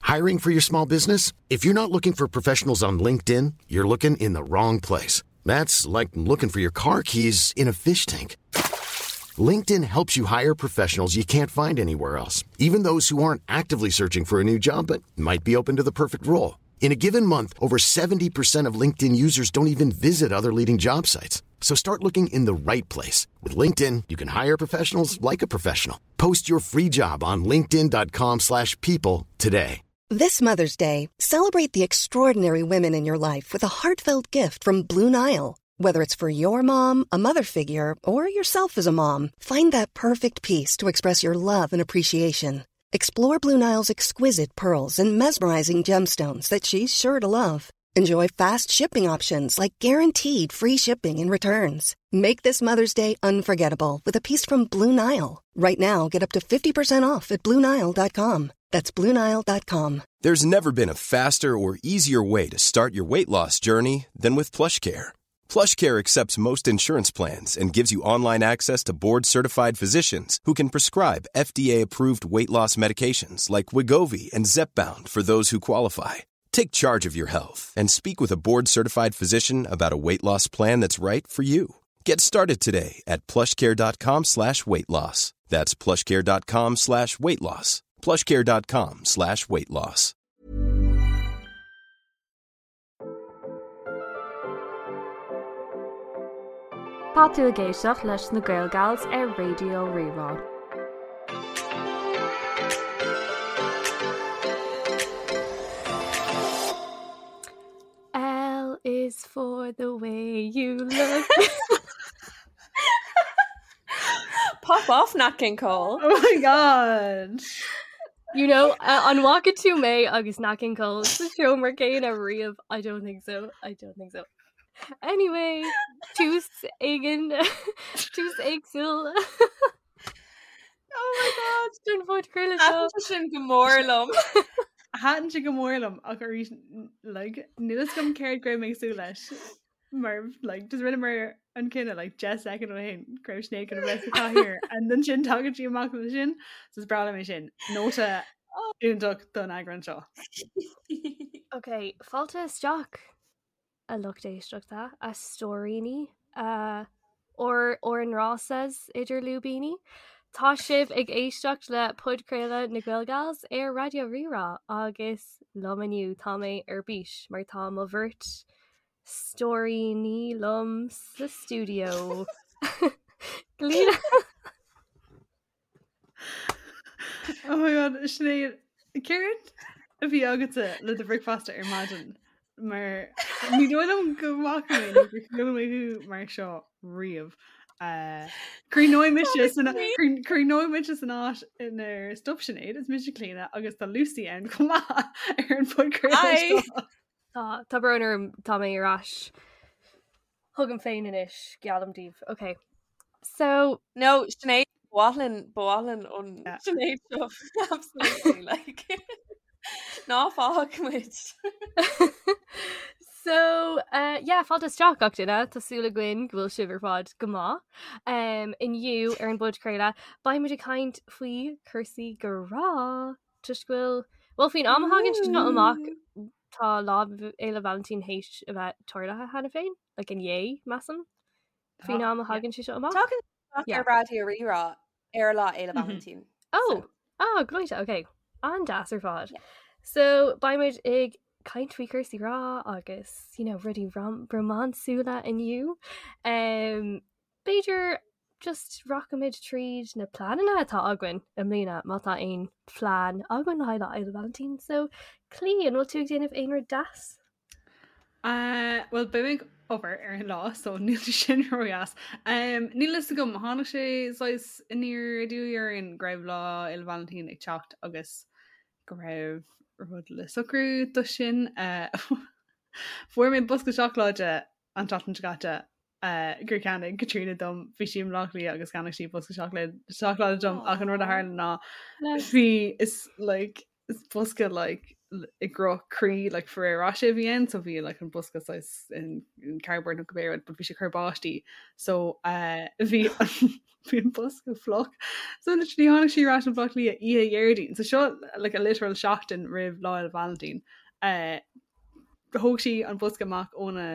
Hiring for your small business? If you're not looking for professionals on LinkedIn, you're looking in the wrong place. That's like looking for your car keys in a fish tank. LinkedIn helps you hire professionals you can't find anywhere else, even those who aren't actively searching for a new job but might be open to the perfect role. In a given month, over 70% of LinkedIn users don't even visit other leading job sites. So start looking in the right place. With LinkedIn, you can hire professionals like a professional. Post your free job on linkedin.com slash people today. This Mother's Day, celebrate the extraordinary women in your life with a heartfelt gift from Blue Nile. Whether it's for your mom, a mother figure, or yourself as a mom, find that perfect piece to express your love and appreciation. Explore Blue Nile's exquisite pearls and mesmerizing gemstones that she's sure to love. Enjoy fast shipping options like guaranteed free shipping and returns. Make this Mother's Day unforgettable with a piece from Blue Nile. Right now, get up to 50% off at BlueNile.com. That's BlueNile.com. There's never been a faster or easier way to start your weight loss journey than with PlushCare. PlushCare accepts most insurance plans and gives you online access to board-certified physicians who can prescribe FDA-approved weight loss medications like Wegovy and Zepbound for those who qualify. Take charge of your health and speak with a board-certified physician about a weight loss plan that's right for you. Get started today at plushcare.com slash weight loss. That's plushcare.com slash weight loss. plushcare.com slash weight loss. Tá tú ag éisteacht leis na Gaelgals ar Raidió Rí-Rá. L is for the way you look. Pop off Nat King Cole. Oh my god. You know, uh, an bhfaca tú mé agus Nat King Cole sa seomra céanna riamh? I don't think so. I don't think so. Anyway, tús éigin tús éagsúil. Oh my god. Don phodchraoladh seo. Thaitin sé sin go mór liom. Thaitin sé go mór liom ach arís like, níl fhios agam céard go raibh mé ag súil leis. Mar like, just rinneamar an cinneadh like, 10 second ó shin go raibh Sinéad chun a bheith sa chathaoir and ansin tagann sí amach le sin so is breá liom é sin. Nóta iontach don eagrán seo. Ok, fáilte isteach. a lucht éisteachta, a stóiríní, a ár ár ngrásas idir lúibíní. Tá sibh ag éisteacht le podchraoladh na Gaelgals ar Raidió Rí-Rá agus liom inniu tá mé ar bís mar tá mo bheirt stóiríní liom sa stiúideo. Clíona. Oh my god, Sinéad, céard a bhí agatsa le do bhricfeasta ar maidin? Mar ní dóigh liom go bhfaca mé nó gur chuala mé thú mar seo riamh. Uh, Críochnóidh mise san críochnóidh mise san áit inar stop Sinéad, is mise Clíona agus tá Lucy ann chomh maith ar an phodchraoladh Hi. seo. Tá tá brón orm tá mé ar ais. Chugam féin anois, geallaim daoibh. Ok. So. No, Sinéad, ba mhaith linn, ba mhaith linn an Sinéad seo. Absolutely, like. Ná fág muid. So, uh, yeah, fáilte isteach gach duine, Tá súil againn go bhfuil sibh ar fad go maith. Um, inniu ar an bpodchraoladh, beidh muid ag caint faoi cúrsaí grá. Toisc go bhfuil, well, faoin am a thagann sé seo amach, Tá Lá Fhéile Vailintín théis a bheith tarlaithe cheana féin, like inné, measaim, faoin am a thagann sé seo amach. Tagann amach ar Raidió Rí-Rá ar Lá Fhéile Vailintín. Oh, ah, gleoite, ok. An-deas ar fad. So, beidh muid ag caint faoi chúrsaí grá agus, you know, rudaí rom rómánsúla inniu. Um, B'fhéidir just rachaimid tríd na pleananna atá againn i mbliana má tá aon phlean againn le haghaidh Lá Fhéile Vailintín. So, Clí, an bhfuil tú ag déanamh aon rud deas? Uh, well, beidh mé ag obair ar an lá, so níl sé sin ródheas. Um, níl fhios agam, tháinig sé saghas aniar aduaidh orainn go raibh Lá Fhéile Vailintín ag teacht agus go raibh rud le socrú do sin. Uh, fuair mé bosca seacláide an tseachtain seo caite gur cheannaigh Caitríona dom, bhí sí i mBleá Cliath agus cheannaigh sí bosca seacláide dom ach an rud a tharla ná bhí is like is bosca like i gcruth croí like Ferrero Rocher a bhí ann so bhí like an bosca saghas in, in cardboard nó cibé rud but bhí sé ag cur báistí so uh, bhí bhí an bosca fliuch so literally tháinig sí ar ais ó Bhaile Átha Cliath oíche Dhéardaoin so seo like a literal seachtain roimh Lá Fhéile Vailintín uh, thóg sí an bosca amach óna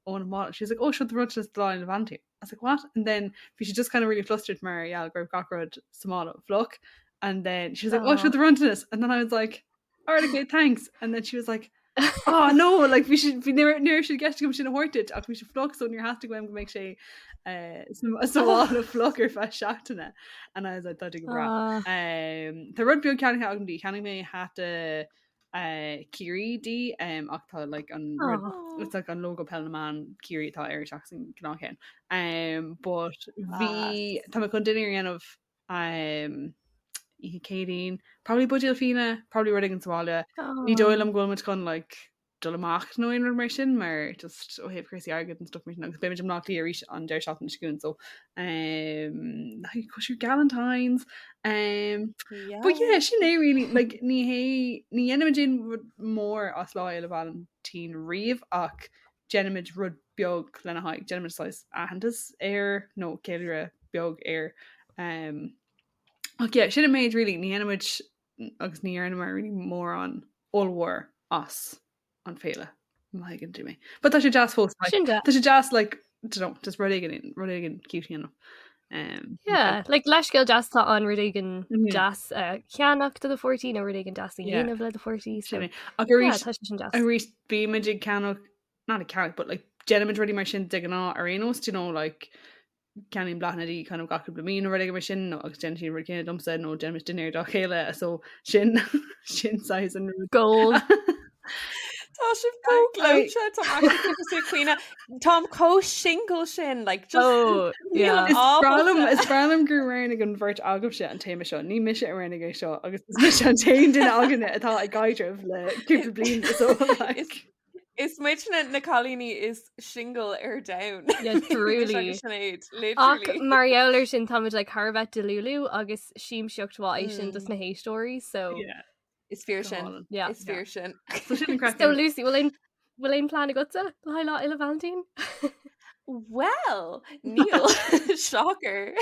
óna mála she was like oh seo do bhronntanas do Lá Fhéile Vailintín I was like what and then bhí sí just kind of really flustered mar gheall go raibh gach rud sa mála fliuch and then she was like oh seo do bhronntanas and then I was like alright okay thanks and then she was like oh no like bhí sí bhí ní raibh sé i gceist agam sin a thabhairt duit ach bhí sé fliuch so níor theastaigh uaim go mbeadh sé eh, sa sa mhála fliuch ar feadh seachtaine and I was like tá go breá. Ah. Um, tá rud beag ceannaithe agam di cheannaigh mé hata uh, Ciarraí di um, ach tá like, an rud Oh. it's like an logo Peil na mBan Ciarraí atá air seachas an gnáthcheann. Um, but bhí tá mé chun dinnéar a dhéanamh um, oíche Céadaoin, probably buidéal fíona, probably rud éigin sa bhaile. Ní dóigh liom go bhfuil muid chun like, dul amach nó aon rud mar sin mar just ó thaobh cúrsaí airgid and stuff mar sin agus beimid i mBleá Cliath arís an deireadh seachtaine seo chugainn so um, like, cóisir Galentine's um, But yeah, sin é really like, ní hé ní dhéanaimid aon rud mór as Lá Fhéile Vailintín riamh ach déanaimid rud beag lena haghaidh, déanaimid saghas aitheantas air nó ceiliúradh beag air. Um, ach yeah, sin an méid really, ní dhéanaimid agus ní dhearnamar really mórán ollmhór as an féile má thuigeann tú mé. But tá sé deas fós like, Sin deas. Tá sé deas like don't know, just rud éigin rud éigin cute you know. Um, Yeah, like leithscéal deas atá ann rud éigin Mhm. deas a cheannach do do pháirtí nó rud éigin deas a Yeah. dhéanamh le do pháirtí. So, Sin é. Ach yeah, arís tá sé sin deas. arís bímid ag ceannach not ag ceannach but like déanaimid rudaí mar sin de ghnáth ar aon nós, do you know like ceannaím bláthanna di kind of gach cúpla mí nó rud éigin mar sin nó agus déanann sí an rud céanna domsa nó déanaimid dinnéar dá chéile so sin sin saghas an rud. Gold. Tá sibh chomh gleoite tá cuioine Táim chomh single sin like just Oh, yeah. Is breá liom ábalta. is breá liom gur roghnaigh an bheirt agaibhse an téama seo ní mise a roghnaigh é seo agus is mise an t-aon duine againne atá i gcaidreamh le cúpla bliain so like Is Is muidne na cailíní is single ar domhan. Yeah, truly. Agus Sinéad, Ach literally. mar gheall air sin táimid like thar a bheith delulu agus siamsaíocht mhaith é sin dos Mm. na héisteoirí so yeah Is fíor go sin. hálainn. yeah. Is fíor sin. So sin an craic So Lucy, bhfuil aon bhfuil aon plean agatsa le haghaidh Lá Fhéile Vailintín? Well, níl. Shocker.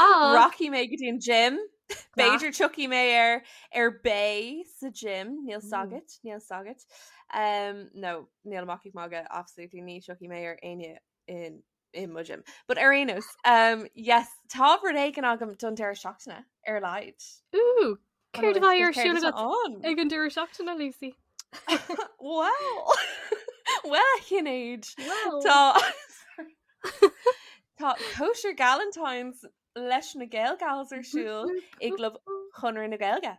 Ah. Rachaidh mé go dtí an gym. Class. B'fhéidir tiocfaidh mé ar ar bae sa gym, níl Mm. 's agat, níl 's agat. Um, no, níl amach ag magadh, absolutely ní tiocfaidh mé ar éinne in in mo gym. But ar aon nós, um, yes, tá rud éigin agam don deireadh seachtaine ar a laghad. Ooh, An céard a bhfuil bheidh ar fhios agat siúl céard agat atá ann? ag an deireadh seachtaine, Lucy? Well, well, Sinéad. Well. Tá Tá cóisir Galentine's leis na Gael Gals ar siúl i gClub Chonradh na Gaeilge.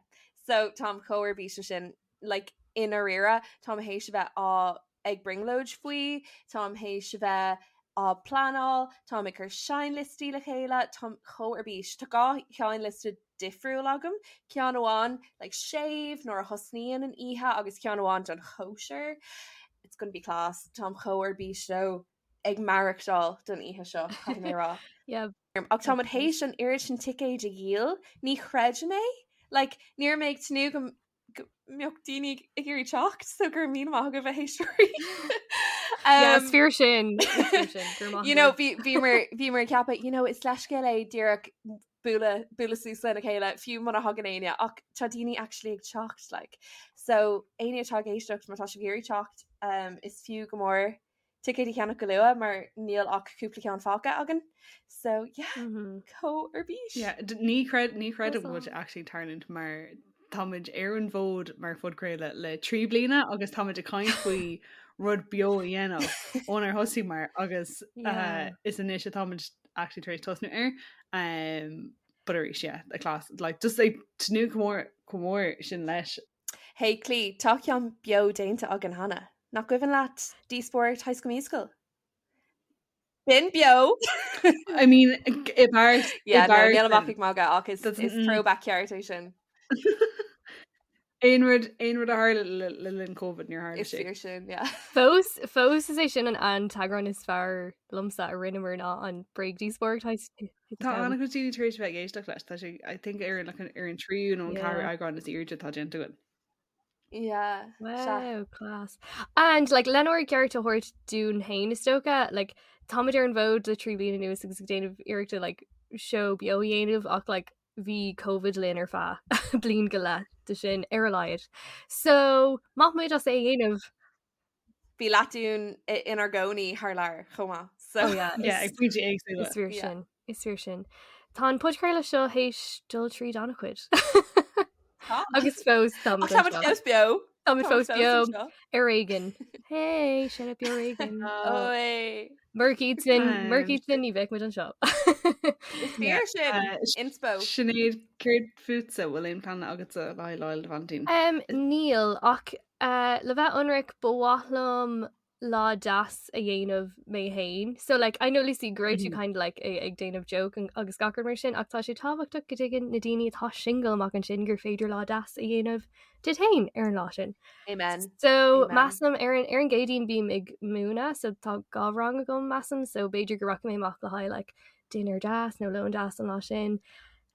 So táim chomh ar bís leis sin like, i ndáiríre, táim théis a bheith á ag brionglóid faoi, táim théis a bheith á pleanáil, táim ag cur seinnliostaí le chéile, táim chomh ar bís. Tá dhá sheinnliosta difriúil agam, ceann amháin like, séimh nuair a thosnaíonn an oíche agus ceann amháin don chóisir. It's gonna be class. Táim chomh ar bís leo ag maireachtáil don oíche seo, caithfidh mé a rá. Yeah. Ach táimid théis an oiread sin ticéid a dhíol, ní chreidim é. Like, ní raibh mé ag tnúth go go mbeadh daoine ag iarraidh teacht, so go raibh míle maith agaibh a éisteoirí. Yeah, Um, is fíor sin. Is fíor sin. Go raibh maith you know, agaibh. bhí bhíomar bhíomar ag ceapadh, you know, is leithscéal é díreach bualadh bualadh suas lena chéile, fiú muna thagann éinne, ach tá daoine actually ag teacht, like. So, éinne atá ag éisteacht, má tá sibh ag iarraidh teacht, um, is fiú go mór ticéid a cheannach go luath mar níl ach cúpla ceann fágtha againn. So yeah, Mhm. chomh ar bís. Yeah, d- ní chreid ní chreidim That's go bhfuil sé actually ag tarlúint mar táimid ar an bhfód mar phodchraoladh le 3 bliana agus táimid ag caint faoi rud beo a dhéanamh ónar thosaíomar agus uh, Yeah. is anois atáimid actually tar éis tosnú air. Um, but arís, yeah, a class like just like tnúth go mór go mór sin leis. Hey Clí, tá ceann beo déanta againn cheana. Nach cuimhin leat díospóireacht High School Musical? B'in beo! I mean, i bpáirt i Yeah, no, bpáirt níl amach sin. ag magadh ach is, That's- is mm. throwback ceart é sin. Aon rud aon rud a tharla le le linn COVID níor tharla Is sé. fíor sin, yeah. Fós fós is é sin an an t-eagrán is fearr liomsa a rinneamar ná an bréagdhíospóireacht High School. Tá an-chuid daoine tar éis a bheith ag éisteacht leis, tá sé I think ar an like, ar an tríú nó an ceathrú Yeah. eagrán is airde atá déanta againn. Yeah. Wow, class. And like lenár gceart a thabhairt dúinn féin is dócha, like táimid ar an bhfód le 3 bliana anuas agus ag déanamh iarrachta like seó beo a dhéanamh ach like bhí Covid linn ar feadh bliain go leith de sin ar a laghad. So maith muid as é a dhéanamh. Bhí leath dínn inár gcónaí thar lear chomh maith. So oh, yeah, yeah, ag pointí éagsúla. Is fíor sin. Is fíor sin. Tá an podchraoladh seo théis dul tríd an-chuid. Agus fós tá fós beo. Tá fós beo ar éigean. Hey, sin beo ar éigean. Murach iad sin murach iad sin ní bheadh muid anseo. Is fíor sin inspo. Sinéad céard fútsa bhfuil aon plean agatsa le haghaidh Lá Fhéile Vailintín? Níl ach uh, le bheith ionraic ba mhaith liom lá deas a dhéanamh mé féin. So like I know Lucy go raibh tú mm. kind of like ag déanamh joke agus gach rud mar sin ach tá sé tábhachtach go dtuigeann na daoine atá single amach ansin gur féidir lá deas a dhéanamh duit féin ar an lá sin. Amen. So Amen. measaim ar an ar an gCéadaoin bím ag múineadh so tá dhá rang agam measaim so b'fhéidir go rachaidh mé amach le haghaidh like dinnéar deas nó lón deas an lá sin.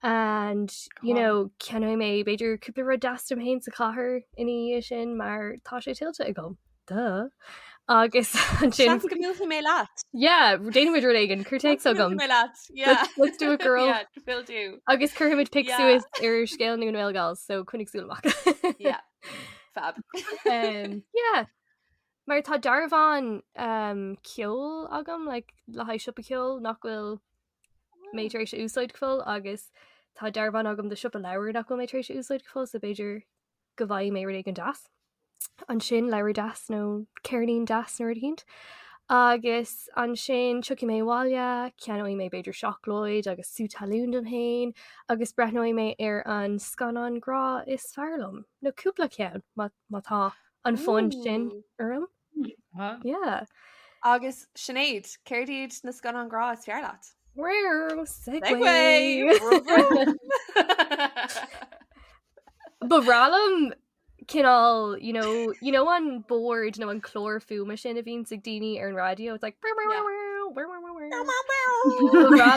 And you know ceannóidh mé b'fhéidir cúpla rud deas dom féin sa chathair ina dhiaidh sin mar tá sé tuillte agam. Duh. Agus ansin Seans go mbuailfidh mé leat. Yeah, déanfaimid rud éigin, cuir téacs chugam. mé leat. Yeah. Let's, let's do it girl. Yeah, will do. Agus cuirfimid pic Yeah. suas ar scéal na nGael Gals, so coinnigh súil amach. Yeah. Fab. um, yeah. Mar tá dearbhán um, ceoil agam like, le haghaidh siopa ceoil nach bhfuil mé tar éis a úsáid go fóill agus tá dearbhán agam do siopa leabhar nach bhfuil mé tar éis a úsáid go fóill, so b'fhéidir go bhfaighidh mé rud éigin deas. Ansin leabhar deas nó ceirnín deas nó rud eicínt. Agus ansin tiocfaidh mé abhaile, ceannóidh mé b'fhéidir seacláid agus sú talún dom féin agus breathnóidh mé ar an scannán grá is fearr liom, nó cúpla ceann má má tá an fonn sin orm. Yeah. Agus Sinéad, céard iad na scannáin grá is fearr leat? Wow, segue! Ba bhreá liom cineál, you know, you know an bord nó an clár fuaime sin a bhíonns ag daoine ar an raidió, it's like Ba bhreá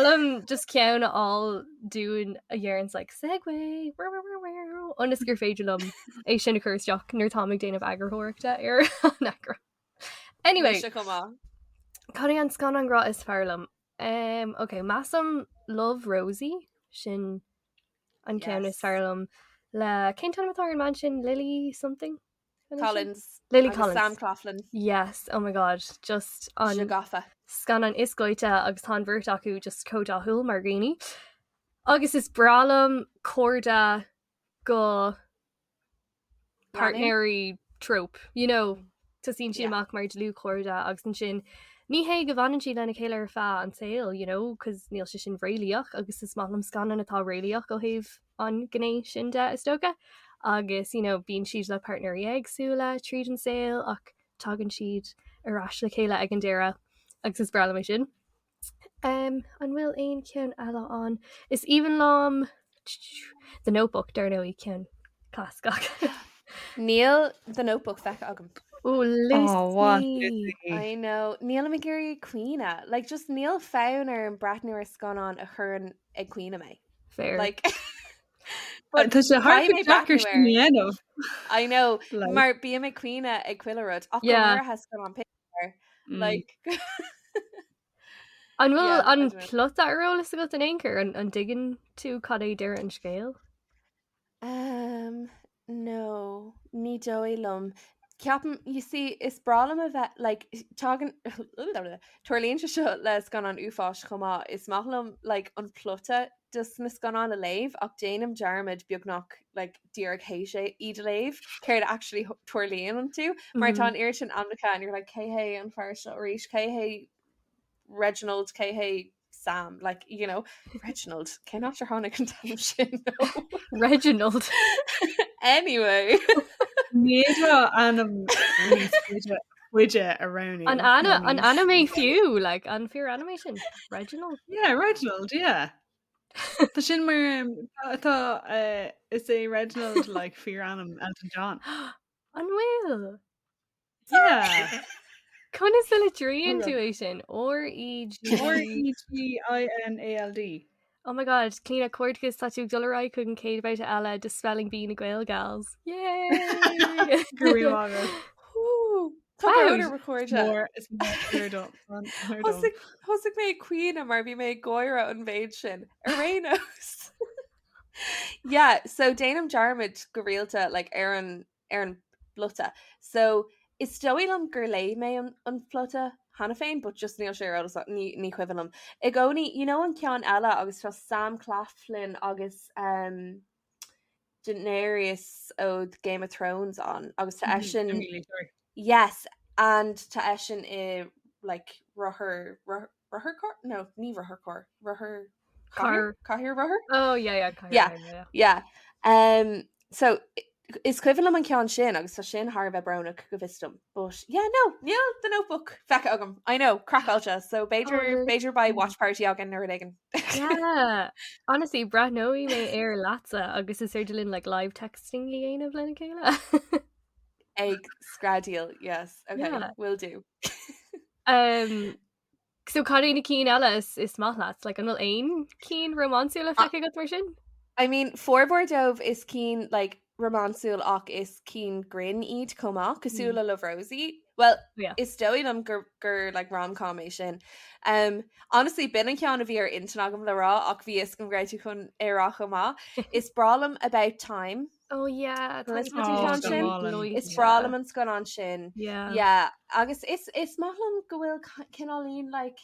liom just ceann a fháil dúinn a dhéananns like segue ionas gur féidir liom é sin a chur isteach nuair táim ag déanamh eagarthóireachta ar an eagrán. Anyway, Mise chomh maith. Cad é an scannán grá is fearr liom? Um, ok, measaim Love Rosie, sin an ceann is Yes. fearr liom le cén t-ainm atá ar an mbean sin Lily something? An é sin? Collins. Lily agus Collins. Sam Claflin. Yes, oh my god, just an Sé gafa. scannán is gleoite agus tá an bheirt acu just chomh dathúil mar dhaoine. Agus is breá liom cairde go páirtnéirí trope, you know, tosaíonn siad amach mar dlúthchairde agus ansin ní hé go bhfanann siad lena chéile ar feadh an tsaoil, you know, cos níl sé sin réalaíoch agus is maith liom scannáin atá réalaíoch ó thaobh an ghné sin de is dócha agus you know, bíonn siad le páirtnéirí éagsúla tríd an saol ach tagann siad ar ais le chéile ag an deireadh agus is breá liom é sin. Um, an bhfuil aon cheann eile ann? Is aoibhinn liom The Notebook, dar ndóigh, ceann clasaiceach. Níl The Notebook feicthe agam. Ó, Oh, what? Lucy! I know. Nílim ag iarraidh caoineadh. Like, just níl fonn orm breathnú ar scannán a chuireann ag caoineadh mé. Fair. Like, but Tá sé thar caithfidh mé deacair breathnú sin air. a dhéanamh. I know. Like, Mar bím ag caoineadh ag chuile rud. Ach go Yeah. háirithe scannán Pixar. Like, An bhfuil yeah, I an don't know. plota ar eolas agat in aon chor? An, an dtuigeann tú cad é deireadh an scéil? Um, no, ní dóigh liom. Ceapaim, you see, is breá liom a bheith, like, tagann, tarlaíonn sé seo le scannán uafáis chomh maith, is maith liom, like, an plota dos na scannáin a léamh ach déanaim dearmad beagnach, like, díreach théis é iad a léamh, céard actually tarlaíonn iontu, mar tá an oiread sin ainmneacha and you're like, cé hé an fear seo arís, cé hé Reginald, cé hé Sam, like, you know, Reginald, cén áit ar tháinig an t-ainm sin? Reginald. Anyway. Ní fhéadfá ainm níos faide faide a roghnú An nó ana an níos ainm é fiú, like, an fíor ainm é sin? Reginald? Yeah, Reginald, yeah. Tá sin mar um, tá tá, eh, is é Reginald like fíor ainm Elton John. An bhfuil? Yeah. Conas a litríonn Hold tú on. é sin? R E G R E G I N A L D. Oh my god, Clíona comhghairdeas tá tú ag dul ar aghaidh chuig an chéad bhabhta eile de Spelling Bee na Gael Gals. Yay! Go raibh maith agat. Tá brón orm a chairde. Mór is mór dom. Mór dom. Thosaigh thosaigh mé ag caoineadh mar bhí mé ag gáire an mhéid sin. Ar aon nós. Yeah, so déanaim dearmad go rialta like, ar an ar an bplota. So is dóigh liom gur léigh mé an, an plota cheana féin, but just níl sé ar eolas ní, ní cuimhin liom. I gcónaí, you know an ceann eile agus tá Sam Claflin agus um, Daenerys ó Game of Thrones ann agus tá eisean Emilia Clarke. Yes, and tá eisean i like rothar rothar rotharcharr? No, ní rotharcharr, rothar Car. cathaoir rothar? Oh yeah yeah cathaoir Yeah. yeah yeah. Yeah. Um, so is cuimhin liom an ceann sin agus tá sin thar a bheith brónach go bhfios dom. But yeah, no, níl The Notebook feicthe agam. I know, craiceáilte, so b'fhéidir Oh, b'fhéidir beidh watch party againn nó rud éigin. Yeah. Honestly, breathnóidh mé air leatsa agus is féidir linn like live texting a dhéanamh lena chéile. Ag screadaíl, yes, okay, Yeah. will do. Um, so cad é na cinn eile is, is maith leat? Like, an bhfuil aon cinn rómánsúla feicthe agat mar sin? I mean, formhór dóibh is cinn like, rómánsúil ach is cinn grinn iad chomh maith, cosúil le Love Rosie. Well, Yeah. is dóigh liom gur, gur like, rom-com é sin. Um, honestly, b'in an ceann a bhí ar intinn agam le rá ach bhí fhios agam go raibh tú chun é a rá chomh maith. Is breá liom About Time. Oh yeah, Tá tá an ceann go sin. hálainn. Is breá liom an scannán sin. Yeah. Yeah, agus is, is maith liom go bhfuil cineáilín like,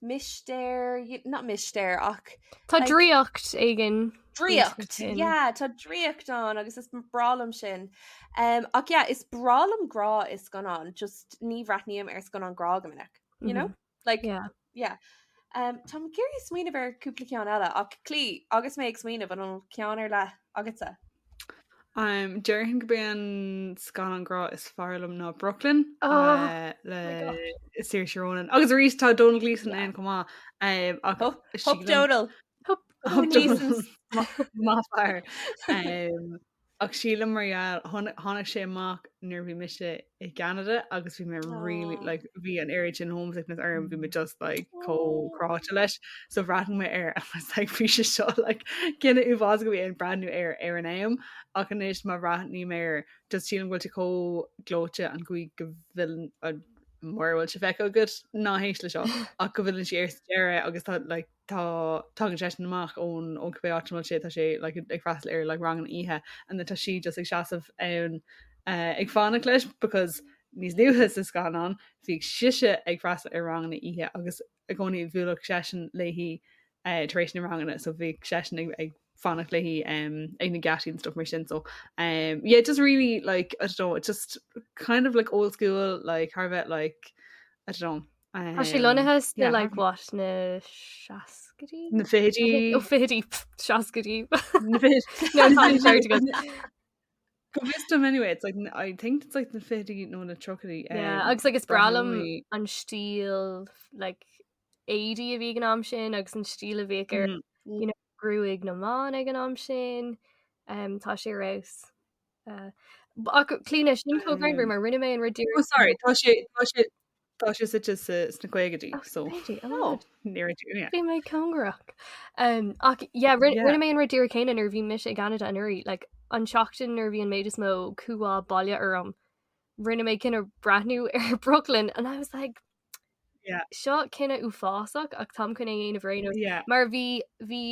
mistéir, not mistéir ach Tá like, draíocht éigin. draíocht. sin. Yeah, tá draíocht ann agus is breá liom sin. Um, ach yeah, is breá liom grá i scannán, just ní bhreathnaím ar scannán grá go minic, you know? Like, Yeah. yeah. Um, Táim ag iarraidh smaoineamh ar cúpla ceann eile ach Clí agus mé ag smaoineamh an bhfuil ceann ar leith agatsa. Um, déarfainn gurb é an scannán grá is fearr liom ná Brooklyn Oh, uh, le my God. Saoirse Ronan. Agus arís tá Domhnall Gleeson Yeah. ann chomh maith. Um, ach Hup, hup sílim- Donal. Hup, Hup Gleeson's. Maith fear. Um, ach sílim mar gheall tháinig sé amach nuair bhí mise i gCeanada agus bhí mé really Aw. like bhí an oiread sin homesickness orm bhí mé just like chomh Aw. cráite leis so bhreathnaigh mé air and was like bhí sé seo like cinneadh uafásach a bhí ann breathnú air ar an am ach anois má bhreathnaím air just sílim go bhfuil sé chomh gleoite an chaoi go bhfuil mura bhfuil sé feicthe agat ná héist le seo ach go bhfilleann sí air sa deireadh agus tá like tá tagann seisean amach ón ón cibé áit a bhfuil sé tá sé like, ag freastal ar like, rang an oíche and then tá sí just ag seasamh ann uh, ag fanacht leis because níos luaithe sa scannán bhí sise ag freastal ar ranganna oíche agus i gcónaí bhuailfeadh seisean léi uh, tar éis na ranganna so bhí seisean ag, ag fanacht léi um, ag na geataí and stuff mar sin so um, yeah just really like I don't know it's just kind of like old school like thar a bheith like I don't know Tá sé lonnaithe sna yeah, like what na seascaidí? na fichidí Ó fichidí seascaidí. na fichidí No, tá an ceart agat. Go bhfios dom anyway, it's like I think it's like na fichidí nó na tríochaidí. Yeah, um, agus like is breá liom breathnóidh- an stíl like éadaí a bhí ag an am sin agus an stíl a bhíodh ar you know, gruaig na mban ag an am sin. Um, tá sé ar fheabhas. Uh, ach Clíona sin chomh greannmhar mar rinne mé an rud Oh sorry, tá sé tá sé tá sé suite sa sna caogaidí Oh, so fichidí, oh my Oh. God. near to yeah. Bhí mé cóngarach. Um, ach yeah, rinne Yeah. rinne mé an rud díreach céanna nuair a bhí mise i gCeanada anuraidh, like, an tseachtain nuair a bhí an méid is mó cumhá baile orm, rinne mé cinneadh breathnú ar Brooklyn and I was like, Yeah. seo cinneadh uafásach ach táim chun é a dhéanamh ar aon nós. Yeah. Mar bhí bhí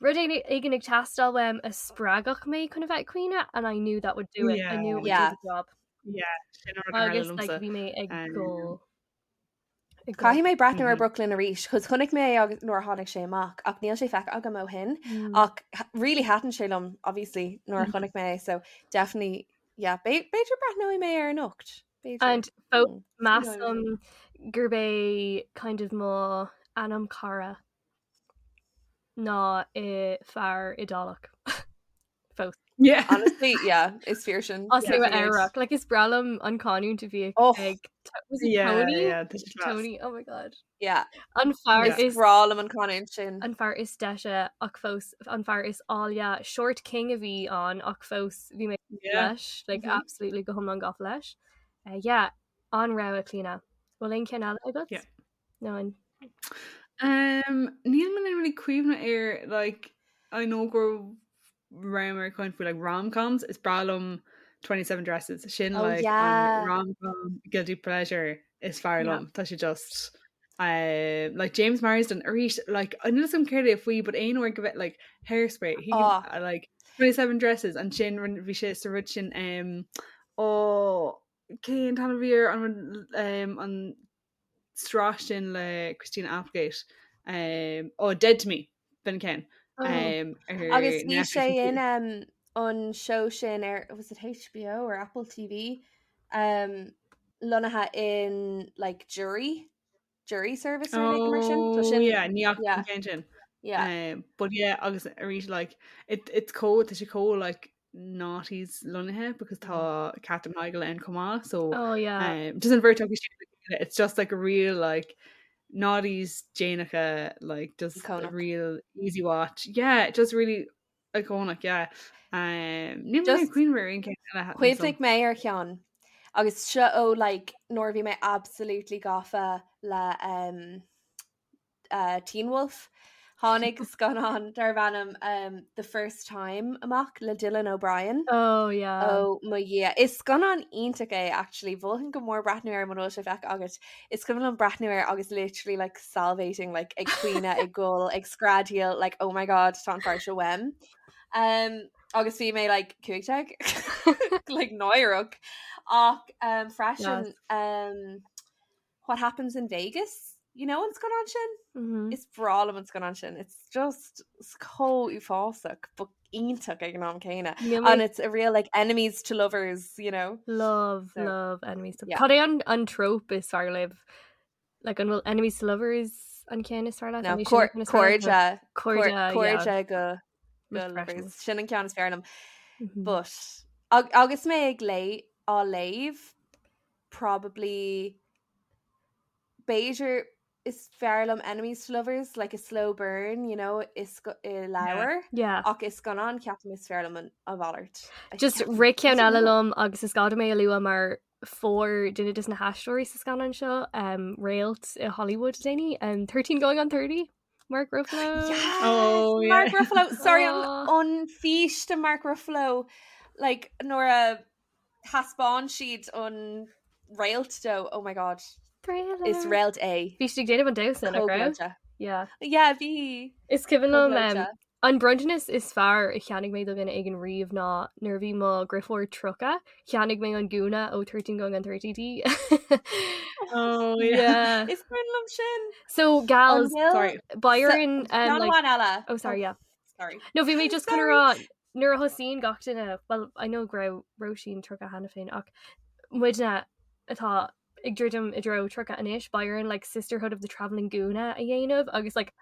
rud éigin ag teastáil uaim a spreagfadh mé chun a bheith ag caoineadh and I knew that would do it. I knew it would Yeah. do the job. Yeah, sin an rud a tharla Agus like, liomsa. bhí mé ag Um, gol. Ag gol. Caithfidh mé breathnú ar Mhm. Brooklyn arís, chos chonaic mé é agus nuair a tháinig sé amach, ach níl sé feicthe agam ó shin. Mm. Ach really thaitin sé liom, obviously, nuair a chonaic mé é, so definitely, yeah, b'fhéidir breathnóidh mé air anocht. B'fhéidir. And fós Mm, measaim gurb é kind of mo anam cara ná i fear Iodálach. Fós. Yeah. Honestly, yeah, is fíor sin. As Yeah. Nua Eabhrac. Like is breá liom an canúint a bhí Oh. ag was it Yeah, Tony? yeah, tá sé class. Tony, oh my god. Yeah, An fear Yeah. is breá liom an canúint sin. an fear is deise ach fós an fear is áille short king a bhí ann ach fós bhí mé Yeah. leis like Mhm. absolutely go hiomlán gafa leis. Uh, yeah, an rogha Clíona. Bhfuil aon cheann eile agat? Yeah. No an. Um, níl mé really cuimhne ar like I know go rabhamar ag caint faoi like rom-coms is breá liom 27 Dresses sin Oh, like yeah. an rom-com guilty pleasure is fearr Yeah. liom tá sé just um, like James Marsden arís like níl a fhios agam céard é faoi but aon uair go bheith like hairspray he can, Oh. like 27 Dresses ansin bhí sé sa rud sin um, ó cén t-ainm a bhí air an rud, um, an sraith sin le Christina Applegate um, oh Dead to Me b'in ceann Oh. um, ar Agus bhí Netflix sé in ansin. um, an show sin ar was it HBO or Apple TV um, lonnaithe in like jury jury service or anything mar sin Tá Oh sin yeah ní fhaca yeah. an ceann sin. yeah. Um, but yeah agus arís like it, it's chomh tá sé chomh like noughties lonnaithe because tá Katherine Heigl ann chomh maith so Oh yeah. um, just an bheirt acu sin le chéile, it's just like a real like noughties déanacha like just a Iconic. real easy watch yeah just really iconic yeah um, níl mé Just ag cuimhneamh ar aon ceann eile a thaitin Cuimhnigh mé ar cheann agus seo ó like nuair a bhí mé absolutely gafa le um, uh, Teen Wolf. Tháinig scannán darb ainm um, The First Time amach le Dylan O'Brien. Oh yeah. Oh mo Dhia. Is scannán iontach é actually mholfainn go mór breathnú air mura bhfuil sé feicthe agat. Is cuimhin liom breathnú air agus literally like salivating like ag caoineadh ag gol ag screadaíl like oh my god tá an fear seo uaim. Um, agus bhí mé like 15 like náireach ach um, freisin Yes. um, What Happens in Vegas? You know an scannán sin? Mhm. Is breá liom an scannán sin. It's just it's chomh uafásach, but iontach ag an am céanna. Níl mé And it's a real like enemies to lovers, you know. Love, So, love enemies to yeah. Cad é an, an trope is fearr libh? Like an bhfuil enemies to lovers an ceann is fearr leat? No, An é sin an ceann is fearr leat? cairde, Cairde, yeah. cairde go go Refreshing. lovers. Sin an ceann is fearr liom. Mhm. But agus mé ag lé á léamh probably b'fhéidir is fearr liom enemies to lovers like a slow burn, you know, is i leabhar. Yeah. Ach i scannán ceapaim is fearr liom an a mhalairt. I Just ceapaim- rith ceann I don't eile know. liom agus is gá dom é a lua mar fuair duine de na haisteoirí sa scannán seo um, réalt i Hollywood déanaí um, 13 going on 30 Mark Ruffalo. Yes! Oh, yeah. Mark Ruffalo. Sorry, an, Aw. an fís de Mark Ruffalo like nuair a thaispeáin siad an réalt dó. Oh my god. Thriller. Is réalt é. Bhí siad ag déanamh an damhsa nach raibh? Chomh gleoite. Yeah. Yeah, bhí. Is cuimhin liom um, Chomh gleoite. an bronntanas is fearr a cheannaigh mé do dhuine éigin riamh ná nuair a bhí mo dheirfiúr 30 cheannaigh mé an gúna ó 13 going on 30 di. Oh yeah. Yeah. Is cuimhin liom sin. So An gals bhfuil Sorry. Byron um, Ceann like, amháin eile. oh sorry yeah. Sorry. No bhí mé just chun Sorry. rá nuair a thosaíonn gach duine well I know go raibh Róisín 30 cheana féin ach muidne atá ag druidim i dtreo 30 anois Byron like Sisterhood of the Travelling Gúna a dhéanamh agus like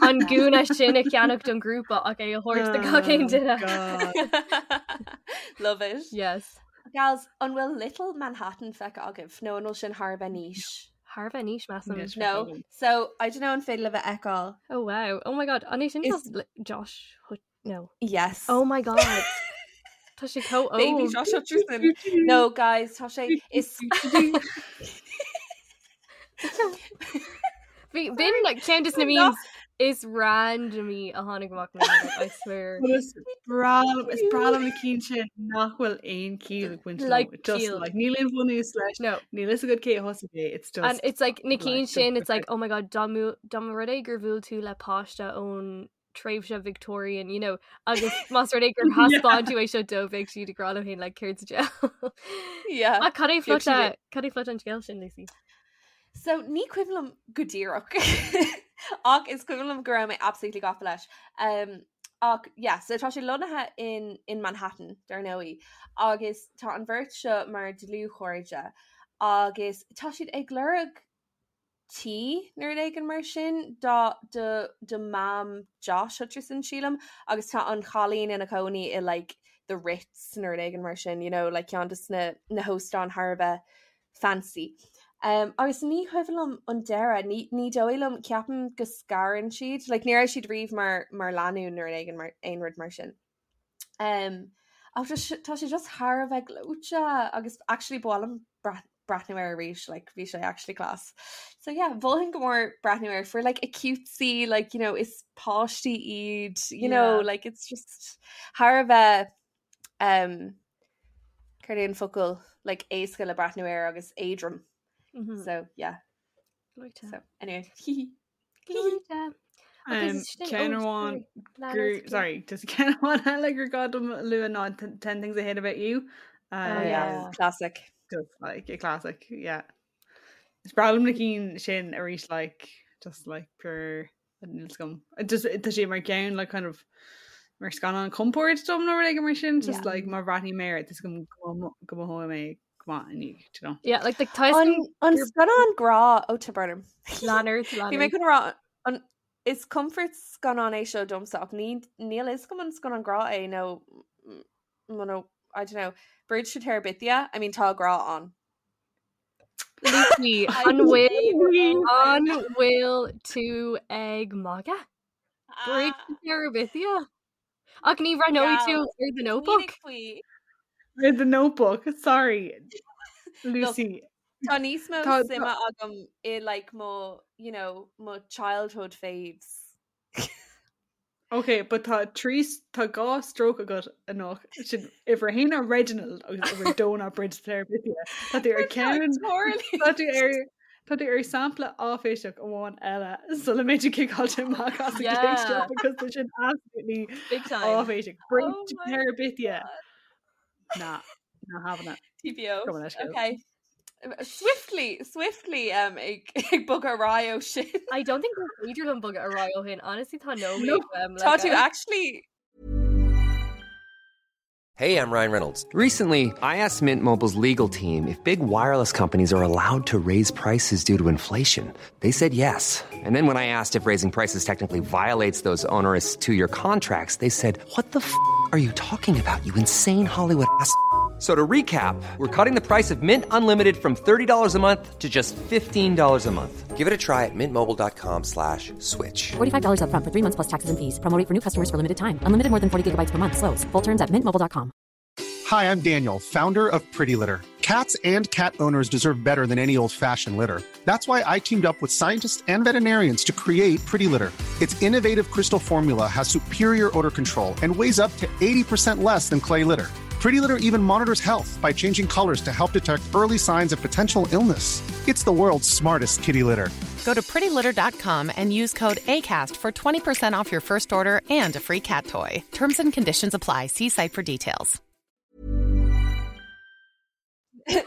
an gúna sin a cheannach don grúpa ach é a thabhairt do gach aon Oh, duine. God. Love it. Yes. Gals, an bhfuil Little Manhattan feicthe agaibh nó an bhfuil sin thar a bheith niche? Thar a bheith niche measaim. Níl sé No. agam. So I don't know an féidir libh a fheiceáil. Oh wow. Oh my god. An é sin Is- just Josh Hut no. Yes. Oh my god. Tá sé chomh Baby óg. Josh Hutcherson. No, guys, tá sé is Bhí b'in like ceann de na I'm memes is randomly a tháinig amach na I swear. Well, Is breá liom is breá liom na cinn sin nach bhfuil aon chiall ag baint leo. Like Just ciall. like níl aon bhunús leis. No. Níl a fhios agat cé a thosaigh é. It's just And it's like na like, cinn just sin it's like perfect. oh my god dá mba rud é gur bhuail tú le páiste ón tréimhse Victorian you know agus más rud é gur thaispeáin tú é seo dóibh beidh siad ag rá leo féin like céard sa diabhal. Yeah. Ach cad é Bheadh siad phlota cad é plota an scéil sin Lucy? So ní cuimhin liom go díreach ach is cuimhin liom go raibh mé absolutely gafa leis. Um, ach yeah, so tá sé lonnaithe in, in Manhattan dar ndóigh agus tá an bheirt seo mar dlúthchairde agus tá siad ag lorg tí nó rud éigin mar sin dá do do mam Josh Hutcherson sílim agus tá an chailín ina cónaí i like the Ritz nó rud éigin mar sin, you know, like ceann de na na hóstáin thar a bheith fancy. Um, agus ní cuimhin liom an deireadh, ní, ní dóigh liom ceapaim go scarann siad, like, ní raibh siad riamh mar, mar lánúin nó rud éigin mar aon rud mar sin. Um, ach tá sé tá sé just thar a bheith gleoite agus actually ba mhaith liom breathnú air arís like bhí sé actually class. So yeah, mholfainn go mór breathnú air for like a cutesy like you know is páistí iad you know yeah. like it's just thar a bheith um céard é an focal like éasca le breathnú air agus éadrom. Mm -hmm. So yeah. Like so anyway. Um, Ceann amháin gur sorry just ceann amháin eile gur gá dom a lua ná 10 Things I Hate About You. Uh, oh, yeah. classic. Just like a classic, yeah. Is breá liom na cinn sin arís like just like pure níl a fhios agam. Just tá sé mar ceann like kind of mar scannán compord dom nó rud éigin mar sin just yeah. like má bhreathnaím air tá a fhios agam go mothóidh mé go maith inniu, do you know. Yeah, like the An an scannán grá ó tá brón orm. Leonard Bhí mé chun rá an is comfort scannán é seo domsa ach ní níl a fhios agam an scannán grá é nó nó I don't know. Bridge to Terabithia, I mean tá grá ann. Lucy, an bhfuil an bhfuil tú ag magadh? Bridge to Terabithia? Ach ní bhreathnóidh tú ar The Notebook? Ar The Notebook, sorry. Lucy. Tá níos mó suime agam i like mo, you know, mo childhood faves. Ok, but tá trí tá dhá stroke agat anocht sin uimhir a haon ná Reginald agus uimhir a dó ná Bridge to Terabithia. Tá tú ar ceann Tá tú ar Tá tú ar sampla áiféiseach amháin eile sula mbeidh tú ciceáilte amach as an gcéad seo because tá sin absolutely Big time. áiféiseach. Bridge to Terabithia. Nah, not having it. TPO. Go on, let's go. Okay. Swiftly, swiftly um, ag, ag bogadh ar aghaidh ó sin. I don't think gur féidir liom bogadh ar aghaidh ó shin. Honestly, tá no No. um, Tá tú actually Hey, I'm Ryan Reynolds. Recently, I asked Mint Mobile's legal team if big wireless companies are allowed to raise prices due to inflation. They said yes. And then when I asked if raising prices technically violates those onerous two year contracts, they said, What the f are you talking about, you insane Hollywood ass? f- So to recap, we're cutting the price of Mint Unlimited from $30 a month to just $15 a month. Give it a try at mintmobile.com slash switch. $45 upfront for three months plus taxes and fees. Promo rate for new customers for limited time. Unlimited more than 40 gigabytes per month. Slows. Full terms at mintmobile.com. Hi, I'm Daniel, founder of Pretty Litter. Cats and cat owners deserve better than any old fashioned litter. That's why I teamed up with scientists and veterinarians to create Pretty Litter. Its innovative crystal formula has superior odor control and weighs up to 80% less than clay litter. Pretty Litter even monitors health by changing colors to help detect early signs of potential illness. It's the world's smartest kitty litter. Go to prettylitter.com and use code ACAST for 20% off your first order and a free cat toy. Terms and conditions apply. See site for details. the,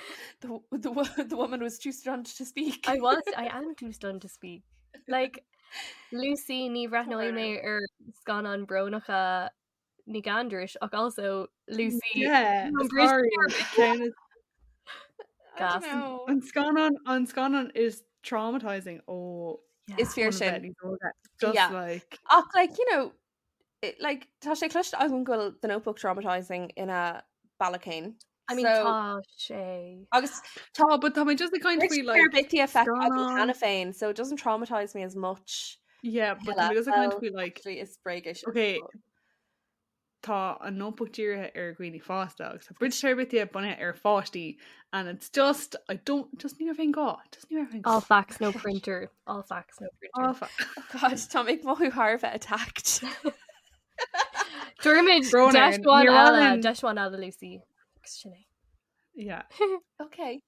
the, wo- the woman was too stunned to speak. I was I am too stunned to speak. Like Lucy ní bhreathnóidh mé ar scannáin brónacha Nic Aindris ach also Lucy Yeah, an Bridge sorry. to Terabithia. I Gas. don't know. An scannán an scannán is traumatizing ó Is fíor óna sin. bheith níos óige. Just Yeah. like Ach like you know it, like tá sé cloiste agam go bhfuil The Notebook traumatizing ina bealach féin. I mean So- tá sé. Agus tá but tá mé just ag caint Bridge faoi to like Terabithia feicthe agam scannán- cheana féin, so it doesn't traumatize me as much. Yeah, but tá mé just ag caint faoi like Actually, is bréag é sin. Okay. Tá an Notebook dírithe ar dhaoine fásta agus tá Bridge to Terabithia bunaithe ar pháistí and it's just I don't just ní raibh aon gá just ní raibh aon gá. All facts no printer. All facts no printer. All facts. Oh God, tá mé ag mothú thar a bheith attacked. Dúirmid Brón deis orainn. amháin Níor mhaith eile linn- deis amháin eile Lucy. Agus sin é. Yeah. Okay.